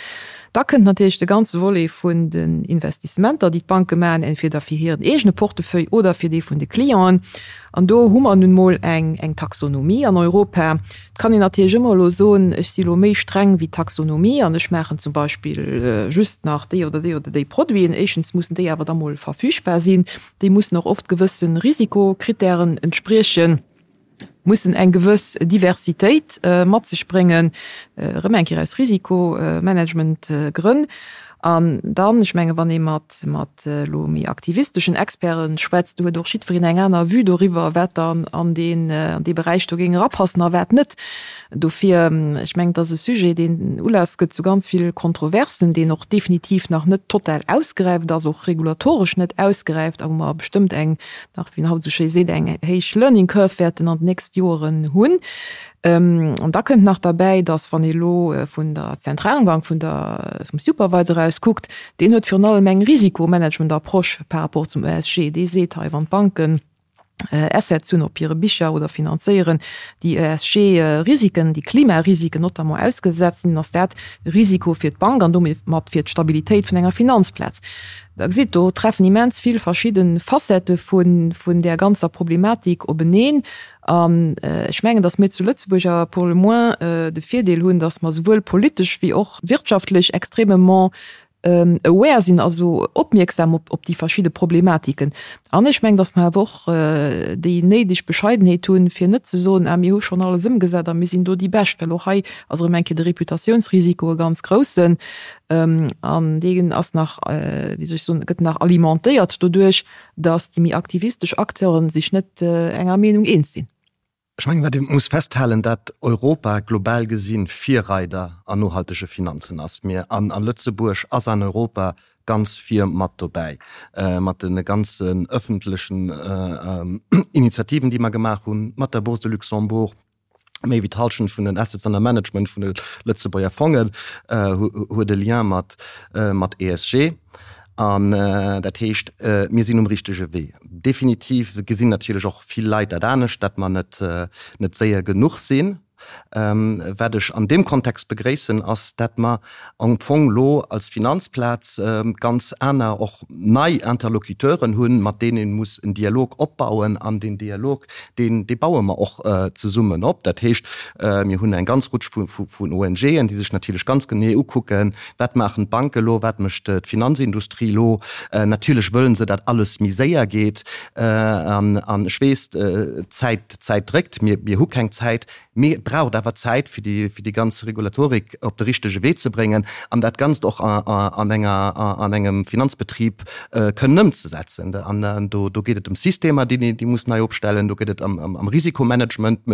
Da kënnt natierlech de ganze Volet vun den Investissementer, déi d'Banke maachen, entweder fir hiren eegene Portefeuille oder fir dee vun de Clienten. An do hu mer nun emol eng, eng Taxonomie an Europa. Et kann een natierlech ëmmer elo soen, ech si elo méi streng wéi d'Taxonomie an ech maachen zum Beispill just nach déi oder déi oder déi Produiten. Éischtens mussen déi awer da mol verfügbar sinn. Déi mussen och oft gewësse Risikokritären entspriechen. mussen eng gewëss Diversitéit mat sech bréngen, erëm eng Kéier aus Risikomanagementgrënn. An dann, ech menge wann ee mat mat elo méi aktivisteschen Experte schwätzt, do huet och jiddwereen eng aner Vue doriwwer, wat dann an deen an dee Beräich do géing erapassen a wat net. Dofir, ech mengen, et ass e Sujet, deen Ulass gëtt zu ganz vill Kontroversen, deen och definitiv nach net total ausgeräift ass, och regulatoresch net ausgeräift a wou mer bestëmmt eng nach, wéi een haut esou schéi seet, eng héich Learning Curve wäerten an den nächste Joeren hunn. An da kënnt nach derbäi, datt, wann ee elo vun der Zentralbank, vun der, vum Supervisor aus kuckt, deen huet virun allem eng Risikomanagement-Approche par rapport zum ESG. Dee seet hei, wann d'Banken Assets hunn op hire Bicher oder finanzéieren, déi ESG-Risiken, déi Klimarisiken notamment ausgesetzt sinn, ass dat e Risiko fir d'Bank an domat fir d'Stabilitéit vun enger Finanzplaz. Der gesitt, do treffen immens vill verschidde Facettë vun där ganzer Problematik openeen. An ech mengen, datt mir zu Lëtzebuerg awer pour le moins de Virdeel hunn, datt mer souwuel politesch wéi och wirtschaftlech extrêmement aware sinn, also opmierksam op déi verschidde Problematiken. An ech mengen, datt mer awer och déi néideg Bescheidenheet hunn, fir net ze soen, ah mir hu schonn alles ëmgesat a mir sinn do déi Bescht, well och hei ass erëm eng Kéier de Reputatiounsrisiko e ganz groussen. An deen ass nach, wéi soll ech soen, gëtt nach alimentéiert doduerch, datt déi méi aktivistesch Acteure sech net enger Meenung eens sinn. Ech mengen, wat ee muss festhalen, dat Europa global gesinn Virreider an nohaltege Finanzen ass. Mir an a Lëtzebuerg ass an Europa ganz vir mat dobäi, mat de ganzen öffentlechen Initiativen, déi mer gemaach hunn, mat der Bourse de Luxembourg. Méi wéi d'Hallschent vun den Assets under Management vun de Lëtzebuerger Fongen huet e Lien mat mat ESG. An dat heescht, mir sinn um richtege Wee. Definitiv gesinn natierlech och vill Leit dat anescht, datt mer net net séier genuch sinn. Wat ech an deem Kontext begréissen, ass, dat mer am Fong elo als Finanzplaz ganz aner, och nei Interlocuteuren hunn, mat deenen ee muss en Dialog opbauen. An deen Dialog, deen, dee baue mer och zesummen op. Dat heescht, mir hunn eng ganz Rutsch vun ONGen, déi sech natierlech ganz genee ukucken, Wat maachen d'Banke elo, wat mécht d'Finanzindustrie elo. Natierlech wëllen se, datt alles méi séier geet. An ech weess, d'Zäit, d'Zäit dréckt. Mir, mir hu keng Zäit. Mee et braucht awer Zäit, fir déi, fir déi ganz Regulatorik op de richtege Wee ze bréngen an dat Ganzt och an enger, an engem Finanzbetrib kënnen ëmzesetzen. An do, do geet et ëm Systemer, déi, déi muss nei opstellen, do geet et ëm, ëm Risikomanagement,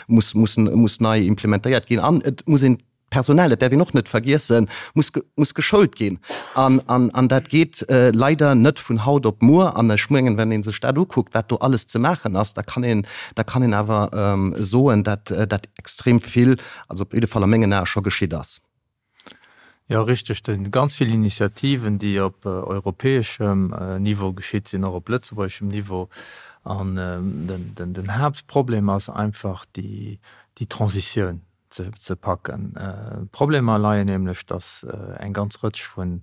muss, muss, muss nei implementéiert ginn an et muss een D'Personal, dat däerf een och net vergiessen, muss, muss geschoult ginn. An, an, an dat geet leider net vun haut op muer. An ech mengen, wenn ee sech dat ukuckt, wat do alles ze maachen ass, da kann een, da kann een awer soen, dat dat extrem vill, also op jidde Fall a mengen Ae scho geschitt ass. Jo, richteg. Do sinn ganz vill Initiativen, déi op europäeschem Niveau geschitt sinn, och op lëtzebuergeschem Niveau. An den, den, den Haaptproblem ass einfach déi, déi Transitioun. ze packen. D'Problemer leien nämlech, datt eng ganz Rëtsch vu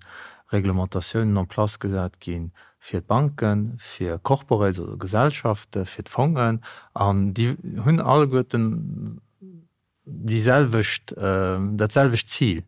Reglementatiounen en place gesat gi fir d'Banken, fir Corporates, also Gesellschaften, fir d'Fongen, an déi hunn alleguerten déi selwecht, dat selwecht Zil.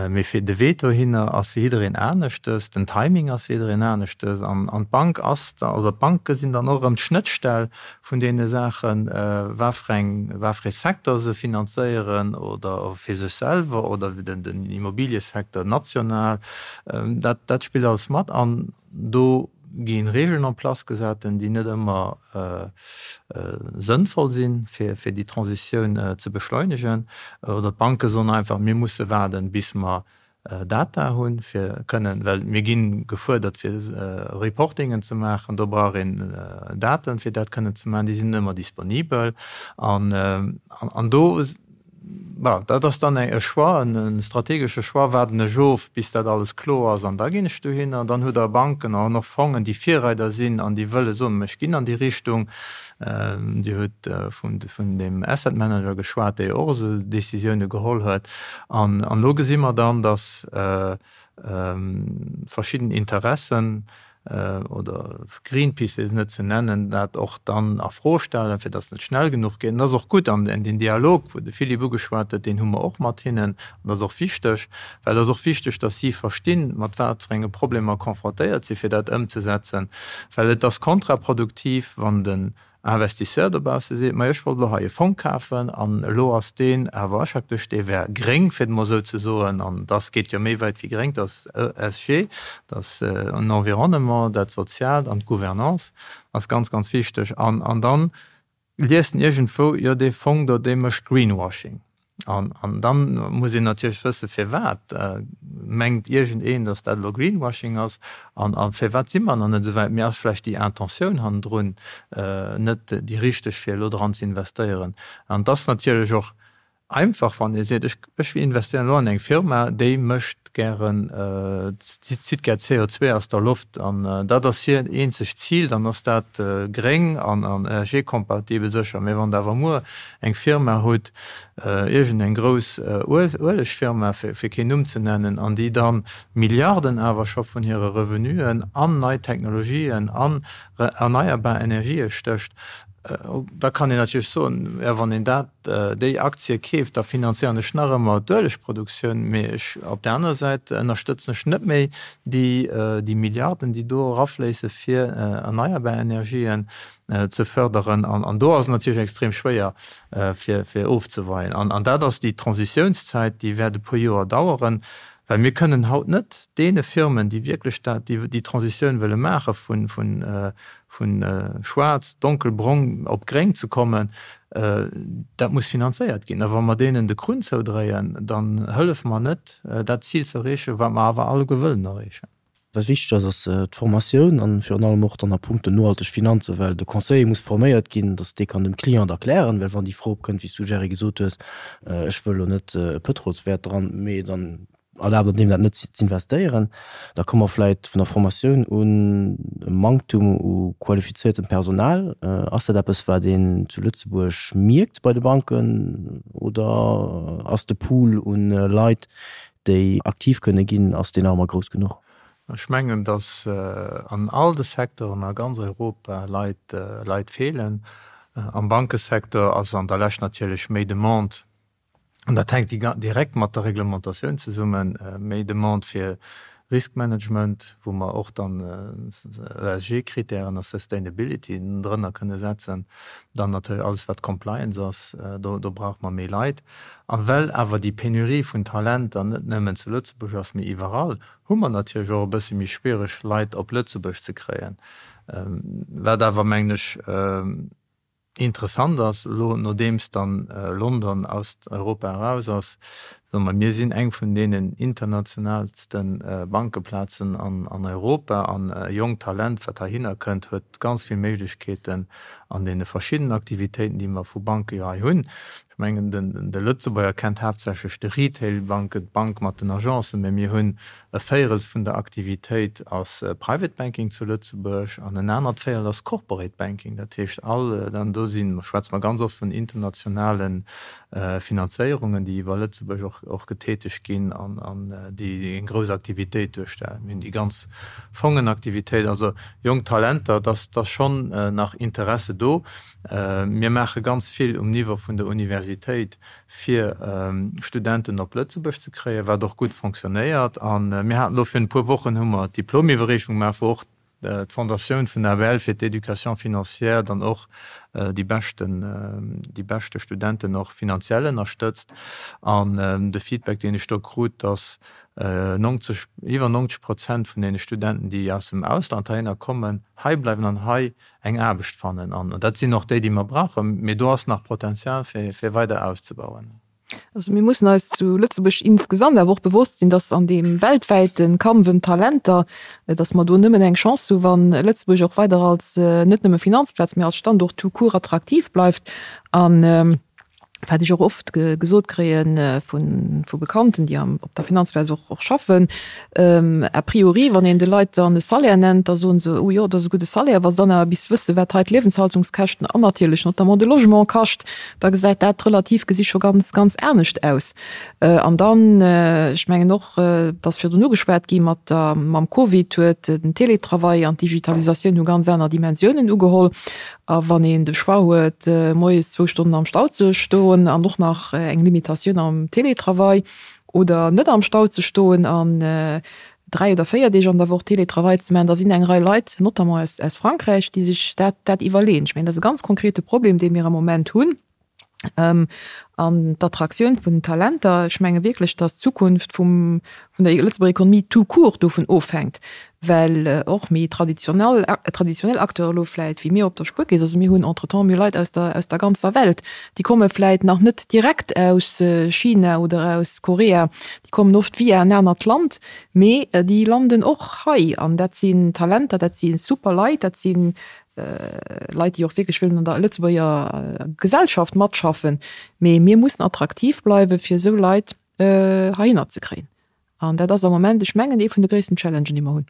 Mee fir de Wee dohinner ass fir jiddereen aneschtes, den Timing ass fir jiddereen aneschtes an d'Bank ass da, oder d'Banke sinn dann och erëm d'Schnëttstell vun deene Saachen, wat fir eng, wat fir ee Secteur se finanzéieren oder fir sech selwer oder den Immobiliësecteur national. Dat, dat spillt alles mat an do gi Regeln en place gesat, déi net ëmmer sënnvoll sinn, fir déi Transitioun ze beschleunegen. Oder d'Banke soen einfach, mir musse waarden, bis mer Data hunn, fir kënnen, well mir gi gefuerdert, fir Reportingen ze maachen, do brauch een Daten, fir dat kënnen ze maachen, déi sinn net ëmmer disponibel. An do Bon, dat ass dann e Choix, e strategesche Choix, waarden ech of, bis dat alles kloer ass an da ginn ech dohinner. Dann hutt Der Banken an och Fongen, déi Virreider sinn an déi wëlle soen, ech ginn an déi Richtung. Dir hutt vun deem Asset Manager geschwat, dee jo och esou Décisioune geholl huet. An elo gesi mer dann, datt verschidden Interessen oder Greenpeace, fir se net ze nennen, dat och dann a Fro stellen, fir datt et net schnell genuch geet. An dat ass och gutt. An deen Dialog, wou de Philippe ugeschwat huet, deen hu mer och mat hinnen. An dat ass och wichteg, well et ass och wichteg, datt si verstinn, mat wat fir enge Problemer confrontéiert sinn, fir dat ëmzesetzen. Well et ass kontraproduktiv, wann den Investisseur dobausse seet, majo ech wollt elo hei e Fong kafen an elo ass deen awer aschaktesch, dee wär gréng, fir et emol esou ze soen, an dass geet jo méi wäit wéi gréng, dass ESG, dass en Environnement, dat Soziaalt an d'Gouvernance ass ganz, ganz wichteg. An an dann liest en iergendwou, jo dee Fong do, dee mécht Greenwashing. An dann muss een natierlech wëssen, firwat mengt iergendeen, datt dat elo Greenwashing ass an a firwat si mer nach net esou wäit. Mee ass vläicht déi Intentioun hannendrun net déi richteg, fir elo dran ze investéieren? An et ass natierlech och einfach, wann ee seet, ech ech investéieren elo an eng Firma, déi mécht gären, zitt gär CO2 aus der Loft an dat ass hir eenzegt Zil, dann ass dat gréng an ESG-kompatibel sécher. Mee wann Der awer muer eng Firma hutt, iergend eng grouss Uelegfirma, fir keen Numm ze nennen, an déi dann Milliarden awer scho vun hire Revenuen an nei Technologien, an erneierbar Energië stécht, da kann een natierlech soen, jo wann een dat, déi Aktie keeft, da finanzéieren ech nach ëmmer d'Uelegproduktioun, mee ech, op där anerer Säit ënnerstëtzen ech net méi déi Milliarden, déi do erafléisse fir erneierbar Energien ze förderen. An do ass et natierlech extrem schwéier, fir ofzeweien. An dat ass déi Transitiounszäit, déi wäert e puer Joer daueren, well mir kënnen haut net deene Firmen, déi wierklech dat, déi Transitioun wëlle maache vu schwaarz, donkelbrong op gréng ze kommen, dat muss finanzéiert ginn. A wa mer deenen de Krunn zoudréien, dann hëllefe mer net, dat Zil ze erreechen, wat mer awer alleguer wëllen erreechen. Wat wichteg ass, ass d'Formatioun an virun allem och dann a punkto nohalteg Finanzen, well de Conseiller muss forméiert ginn, dass dee kann dem Client erklären, well wann déi Fro opkënnt, wéi s du, Jerry, gesot hues, ech wëll elo net e Pëtrolswäert dran, mee dann. Erlaabt an deem dat net z'investéieren. Da komme mer vläit vun der Formatioun un e Manktum u qualifiziertem Personal. Ass dat eppes, wat een zu Lëtzebuerg mierkt bei de Banken oder ass de Pool un Leit, déi aktiv kënne ginn, ass deen nach ëmmer grouss genuch? Ech mengen, datt an all de Secteuren a ganz Europa Leit, Leit feelen. Am Bankesecteur ass an der Lescht natierlech méi Demande An dat hänkt direkt mat der Reglementatioun zesummen, méi Demande fir Riskmanagement, wou mer och dann ESG-Kritären a Sustainability drënner kënne setzen. Dann natierlech alles, wat Compliance ass, do brauche mer méi Leit. A well awer déi Penurie vun Talenter net nëmmen zu Lëtzebuerg ass, mee iwwerall, hu mer natierlech och e bësse méi schwiereg, Leit op Lëtzebuerg ze kréien. Wat awer, mengen ech, Interessant ass, elo nodeems dann London aus Europa eraus ass, soe mer, mir sinn eng vun deenen internationalste Bankeplazen an Europa an e jonkt Talent, wat heihinner kënnt, huet ganz vill Méiglechkeeten an deene verschiddenen Aktivitéiten, déi mer vu Banke jo hei hunn. Ech mengen, de Lëtzebuerger kennt haaptsächlech de Retail-Banken, d'Bank mat den Agencen, mä mir hunn e Véierels vun der Aktivitéit ass Private Banking zu Lëtzebuerg an en anert Véierel ass Corporate Banking. Dat heescht all, an do si schwätze mer ganz oft vun internationale Finanzéierungen, déi iwwer Lëtzebuerg och getätegt ginn an déi eng grouss Aktivitéit duerstellen. Mir hunn déi ganz Fongenaktivitéit, also jonk Talenter, et ass schonn nach Interesse do. Mir maache ganz vill um Niveau vun der Universitéit, fir Studenten op Lëtzebuerg ze kréien, wat och gutt fonctionnéiert. A mir haten elo virun e puer Wochen hu mer d'Diplomiwwerreechung gemaach, wou och d'Fondatioun vun der ABL fir d'Éducation financière dann och déi beschten, déi beschte Studenten och finanziell ënnerstëtzt. An de Feedback, deen ech do krut, dass 90, iwwer 90 Prozent vun deene Studenten, déi aus dem Ausland heihinner kommen, heibleiwen an hei eng Aarbecht fannen. An dat sinn och déi, déi mer brauchen. Mee do ass nach Potenzial, fir weider auszebauen. Also mir mussen eis zu Lëtzebuerg insgesamt awer och bewosst sinn, dass an deem weltwäite Kampf ëm Talenter, dass mer do nëmmen eng Chance hu wann Lëtzebuerg och weider als net nëmme Finanzplaz, mee als Standort tout court attraktiv bleift. An wat ech och oft gesot kréie vu Bekannten, déi op der Finanzplaz och schaffen, a priori, wann een de Leit dann e Salaire nennt, da soen se, oh jo, dat ass e gudde Salaire. Wa se dann awer bis wësse wat hei d'Liewenshaltungskäschten an natierlech notamment de Logement kascht, da gesäit dat relativ gesi scho ganz, ganz anescht aus. An dann, ech mengen och, et ass virdrun ugeschwat gi mat der, mam Covid huet den Teletravail an d'Digitalisatioun hu ganz aner Dimensiounen ugeholl. A wann een de Choix huet, moies zwou Stonnen am Stau ze stoen an och nach eng Limitatioun am Télétravail oder net am Stau ze stoen an dräi oder véier Deeg an der Woch Télétravail ze maachen, da sinn eng Rei Leit, notamment aus Frankräich, déi sech dat iwwerleeën. Ech mengen, dat ass e ganz konkrete Problem, dee mir am Moment hunn. An d'Attraktioun vun den Talenter, ech menge wierklech, datt d'Zukunft vum, vun der Lëtzebuerger Ekonomie tout court dovun ofhänkt, well och méi traditionell, traditionell Acteure elo vläit wéi mir op der Spuerkeess, also mir hunn entretemps, mir hu Leit aus der, aus der ganzer Welt, déi komme vläit nach net direkt aus China oder aus Korea, déi kommen oft via en anert Land, mee déi landen och hei. An dat sinn Talenter, dat si super Leit, dat si Leit, déi och wierklech wëllen an der Lëtzebuerger Gesellschaft matschaffen. Mee mir mussen attraktiv bleiwen, fir esou Leit heihinner ze kréien. An dat ass am Moment, ech mengen, ee vun de gréissten Challengen, déi mer hunn.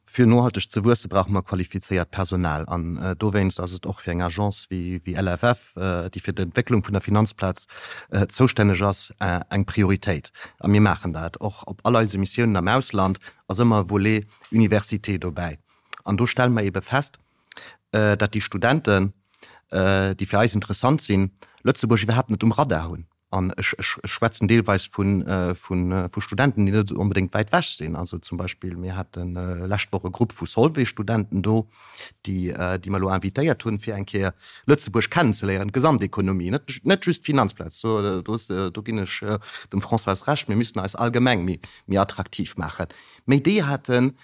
Fir nohalteg ze wuesse brauche mer qualifizéiert Personal. An dowéinst ass et och fir eng Agence wéi LFF, déi fir d'Entwécklung vun der Finanzplaz zoustänneg ass, eng Prioritéit. A mir maachen dat. Och op all eise Missiounen am Ausland ass ëmmer e Volet Université dobäi. An do stelle mer eebe fest, datt déi Studenten, déi fir eis interessant sinn, Lëtzebuerg iwwerhaapt net um Radar hunn. An ech schwätzen deelweis vu Studenten, déi net onbedéngt wäit wech sinn. Also zum Beispill, mir hate lescht Woch e Grupp vu Solvay-Studenten do, déi mer elo invitéiert hunn, fir eng Kéier Lëtzebuerg kennenzeléieren, d'Gesamtekonomie, net just d'Finanzplaz. Do ginn ech dem Françoise Recht, mir müssen eis allgemeng méi attraktiv maachen. Mee déi haten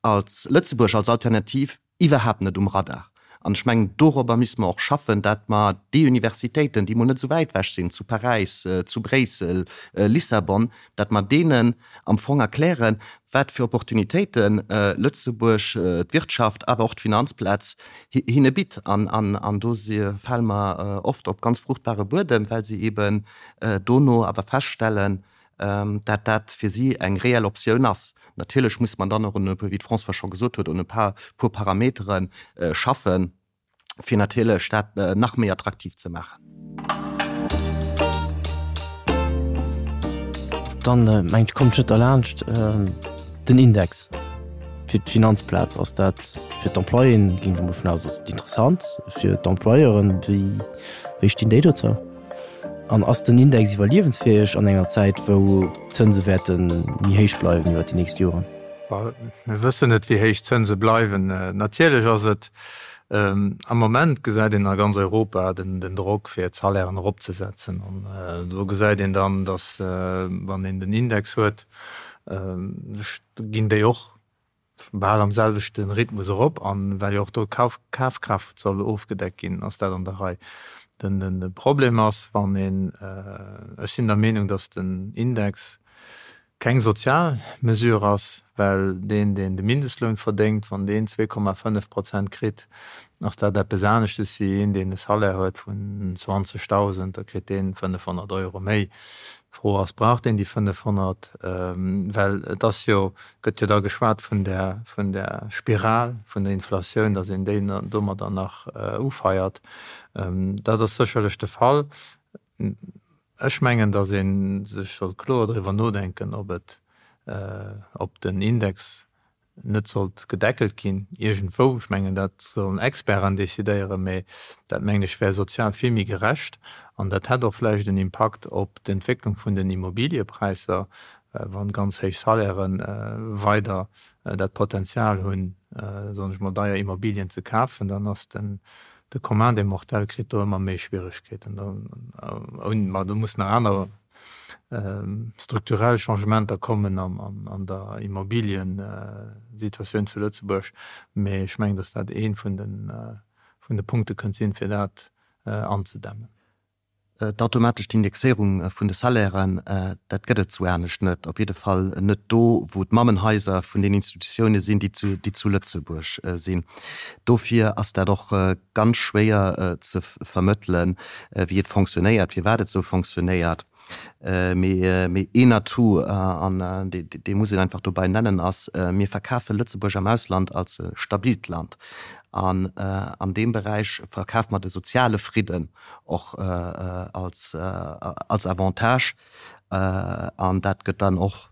als Lëtzebuerg als Alternativ iwwerhaapt net um Radar. An ech mengen, dorobber misste mer och schaffen, dat mer déi Universitéiten, déi emol net esou wäit ewech sinn, zu Paräis, zu Bréissel, Lissabon, dat mer deenen am Fong erklären, wat fir Opportunitéite Lëtzebuerg, d'Wirtschaft, awer och d'Finanzplaz hinne bitt. An do fale mer oft op ganz fruchtbare Buedem, well se eeben dono awer feststellen. dat dat fir si eng reell Optioun ass. Natierlech muss man dann och un e puer, wéi d'Françoise scho gesot huet, un e puer Parametere schaffen, fir natierlech dat nach méi attraktiv ze maachen. Dann mengen ech, kommt ech net derlaanscht, den Index fir d'Finanzplaz. Ass dat fir d'Employéen, ginn ech emol vun aus, ass et interessant. Fir d'Employeuren, wéi, wéi stinn déi dozou? An ass den Index iwwerliewensfäeg an enger Zäit, wou d'Zënse wäerte méi héich bleiwen iwwer déi nächst Joren? Mir wëssen net, wéi héich d'Zënse bleiwen. Natierlech ass et, am Moment gesäit een a ganz Europa den Drock, fir d'Salairen eropzesetzen. An do gesäit een dann, datt, wann een den Index huet, ginn déi och bal am selwechte Rhythmus erop an well jo och do d'Kafkraaft soll ofgedeckt ginn, ass dat an der Rei. De Problem ass, wann een, ech sinn der Meenung, datt den Index keng sozial Mesure ass, well deen, deen de Mindestloun verdéngt, wann deen 2,5 Prozent kritt, ass dat eppes aneschtes wéi een, deen e Salaire huet vun 20.000, da kritt deen 500 Euro méi. D'Fro ass, Brauch deen déi 500? Well et ass jo, gëtt jo da geschwat vun där, vun där Spiral vun der Inflatioun, datt een déi domadder nach ufeiert. Dat ass sécherlech de Fall. Ech mengen, datt ee sech sollt kloer driwwer nodenken, ob et, ob den Index net sollt gedeckelt ginn iergendwou. Ech mengen, dat sollen Experten decidéieren, mä dat, mengen ech, wär sozial vill méi gerecht an dat hätt och vläicht en Impakt op d'Entwécklung vun den Immobiliëpräisser, wann ganz héich Salairë weider dat Potenzial hunn, soen ech mol, deier Immobilien ze kafen, dann ass den de Commun des mortels kritt do ëmmer méi Schwieregkeeten. Ma do mussen nach aner strukturell Changementer kommen an der Immobiliensituatioun zu Lëtzebuerg. Mee ech mengen, datt dat ee vun de Punkte kënnt sinn, fir dat anzedämmen. D'automatescht Indexéierung vun de Salairen, dat gëtt et sou anescht net, op jidde Fall net do, wou d'Mammenhaiser vun den Institutioune sinn, déi zu Lëtzebuerg sinn. Dofir ass dat och ganz schwéier ze vermëttelen, wéi et fonctionnéiert, firwat et sou fonctionnéiert. Mee een Atout, an dee muss een einfach dobäi nennen, ass, Mir verkafe Lëtzebuerg am Ausland als e stabilt Land. An an deem Beräich verkafe mer de soziale Fridden och als Avantage. An dat gëtt dann och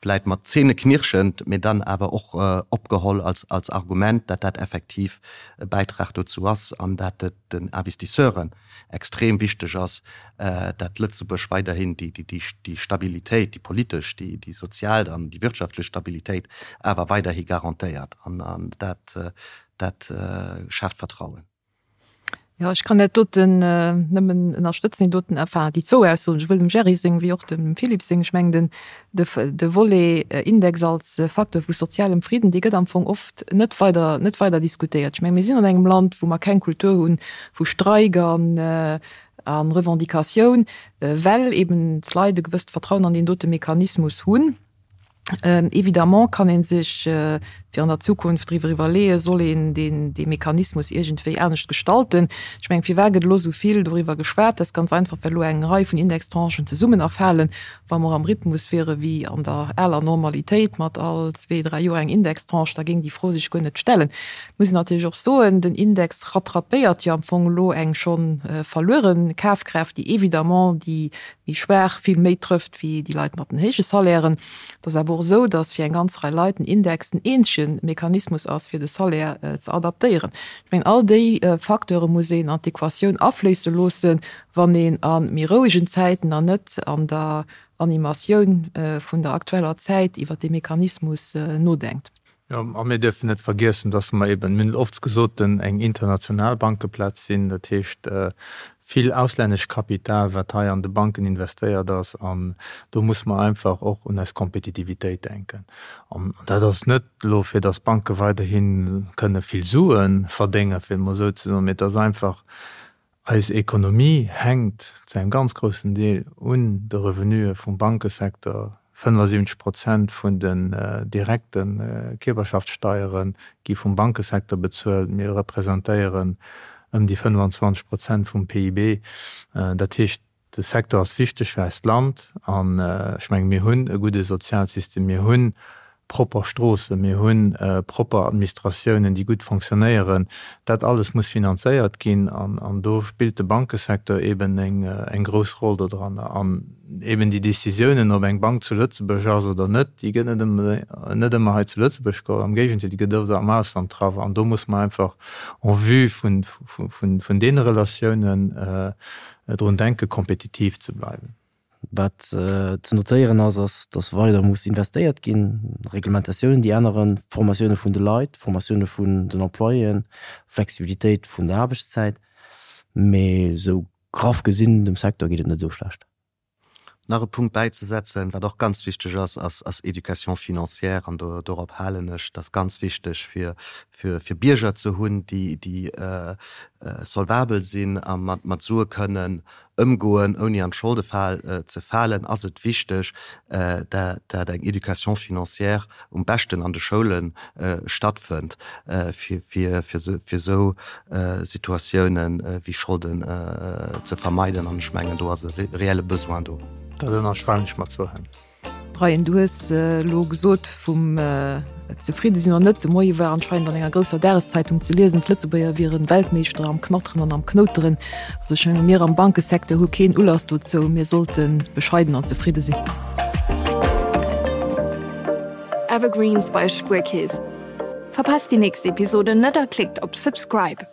vläit mat zähneknirschend, mee dann awer och opgeholl als Argument, dat dat effektiv e Bäitrag dozou ass an dat et den Investisseuren extrem wichteg ass, dat Lëtzebuerg weiderhin déi Stabilitéit, déi politesch, déi sozial an déi wirtschaftlech Stabilitéit awer weiderhi garantéiert. An dat schaaft Vertrauen. Jo, ech kann dat doten nëmmen ënnerstëtzen, déi doten, enfin déi zwou Aussoen, souwuel dem Gerry seng wéi och dem Philippe seng. Ech mengen, den, de, de Volet Index als Facteur vu sozialem Friden, dee gëtt am Fong oft net weider, net weider diskutéiert. Ech mengen, mir sinn an engem Land, wou mer keng Kultur hunn vu Streik an, a Revendicatioun, well eben d'Leit e gewësst Vertrauen an deen dote Mechanismus hunn. Évidemment kann ee sech fir an der Zukunft driwwer iwwerleeën, soll een deen, dee Mechanismus iergendwéi anescht gestalten. Ech mengen, firwat gëtt elo esou vill doriwwer geschwat? Dat ass ganz einfach, well elo eng Rei vun Indextranchen zesummen erfalen. Wa mer am Rhythmus wiere wéi an der aler Normalitéit mat all zwee, dräi Joer eng Indextranche, da géing déi Fro sech guer net stellen. Et muss een natierlech och soen, den Index rattrapéiert jo am Fong elo eng scho verluere Kafkraaft, déi évidemment déi méi schwaach vill méi trëfft wéi déi Leit mat den héije Salairen. Et ass awer och esou, datt fir eng ganz Rei Leit den Index den eenzege Mechanismus ass, fir de Salaire ze adaptéieren. Ech mengen, all déi Facteure muss een an d'Equatioun afléisse loossen, wann een a méi rouegen Zäiten an net an der Animatioun vun der aktueller Zäit iwwert dee Mechanismus nodenkt. Jo, a mir dierfen net vergiessen, dass mer eben, mir hunn et oft gesot, eng international Bankeplaz sinn. Dat heescht, vill auslännescht Kapital, wat hei an de Banken investéiert ass. An do muss mer einfach och un eis Kompetitivitéit denken. An dat ass net elo, fir dass d'Banke weiderhi kënne vill Sue verdéngen, fir et emol esou ze soen, mee et ass einfach, Eis Ekonomie hänkt zu engem ganz groussen Deel un de Revenuë vum Bankesecteur. 75 Prozent vun den direkte Kierperschaftssteiere gi vum Bankesecteur bezuelt. Mir representéieren ëm déi 25 Prozent vum PIB. Dat heescht. De Secteur ass wichteg fir eist Land an ech menge mir hunn e gudde Sozialsystem, mir hu propper Stroossen, mir hu propper Administratiounen, déi gutt fonctionnéieren. Dat alles muss finanzéiert ginn an do spillt de Bankesecteur eben eng grouss Roll dodranner. An eben déi Décisiounen, ob eng Bank zu Lëtzebuerg ass oder net, déi gëtt net ëmmer hei zu Lëtzebuerg geholl, am Géigendeel, déi gëtt oft am Ausland traff. An do muss mer einfach en vue vun deene Relatiounen drun denken, kompetitiv ze bleiwen. Wat ze notéieren ass, ass, datt weider muss investéiert ginn, Reglementatiounen, déi änneren, Formatioune vun de Leit, Formatioune vun den Employéen, Flexibilitéit vun der Aarbechtszäit. Mee esou graff gesinn, dem Secteur geet et net esou schlecht. Nach e Punkt bäizesetzen, wat och ganz wichteg ass, ass ass Éducation financière. An do dorop halen ech. Dat ass ganz wichteg, fir fir fir Bierger ze hunn, déi déi solvabel sinn a mat mat Sue kënnen ëmgoen, ouni an d'Scholdefal ze falen, ass et wichteg, dat eng Éducation financière um beschten an de Schoule stattfënnt, fir esou Situatiounen wéi Scholden ze vermeiden. An ech mengen, do ass e reelle Besoin do. Dat ënnerschreiwen ech mat zwou Hänn. Brian, du hues elo gesot vum zefridde sinn oder net. De Moie war anscheinend an enger grousser Dageszeitung ze liesen, d'Lëtzebuerger wieren Weltmeeschter am Knatteren an am Knouteren. Also ech menge mir am Bankesecteur hu keen Ulass dozou. Mir sollte bescheiden an zefridde sinn. Evergreens bei Spuerkeess. Verpasst déi nächst Episode net a klickt op Subscribe.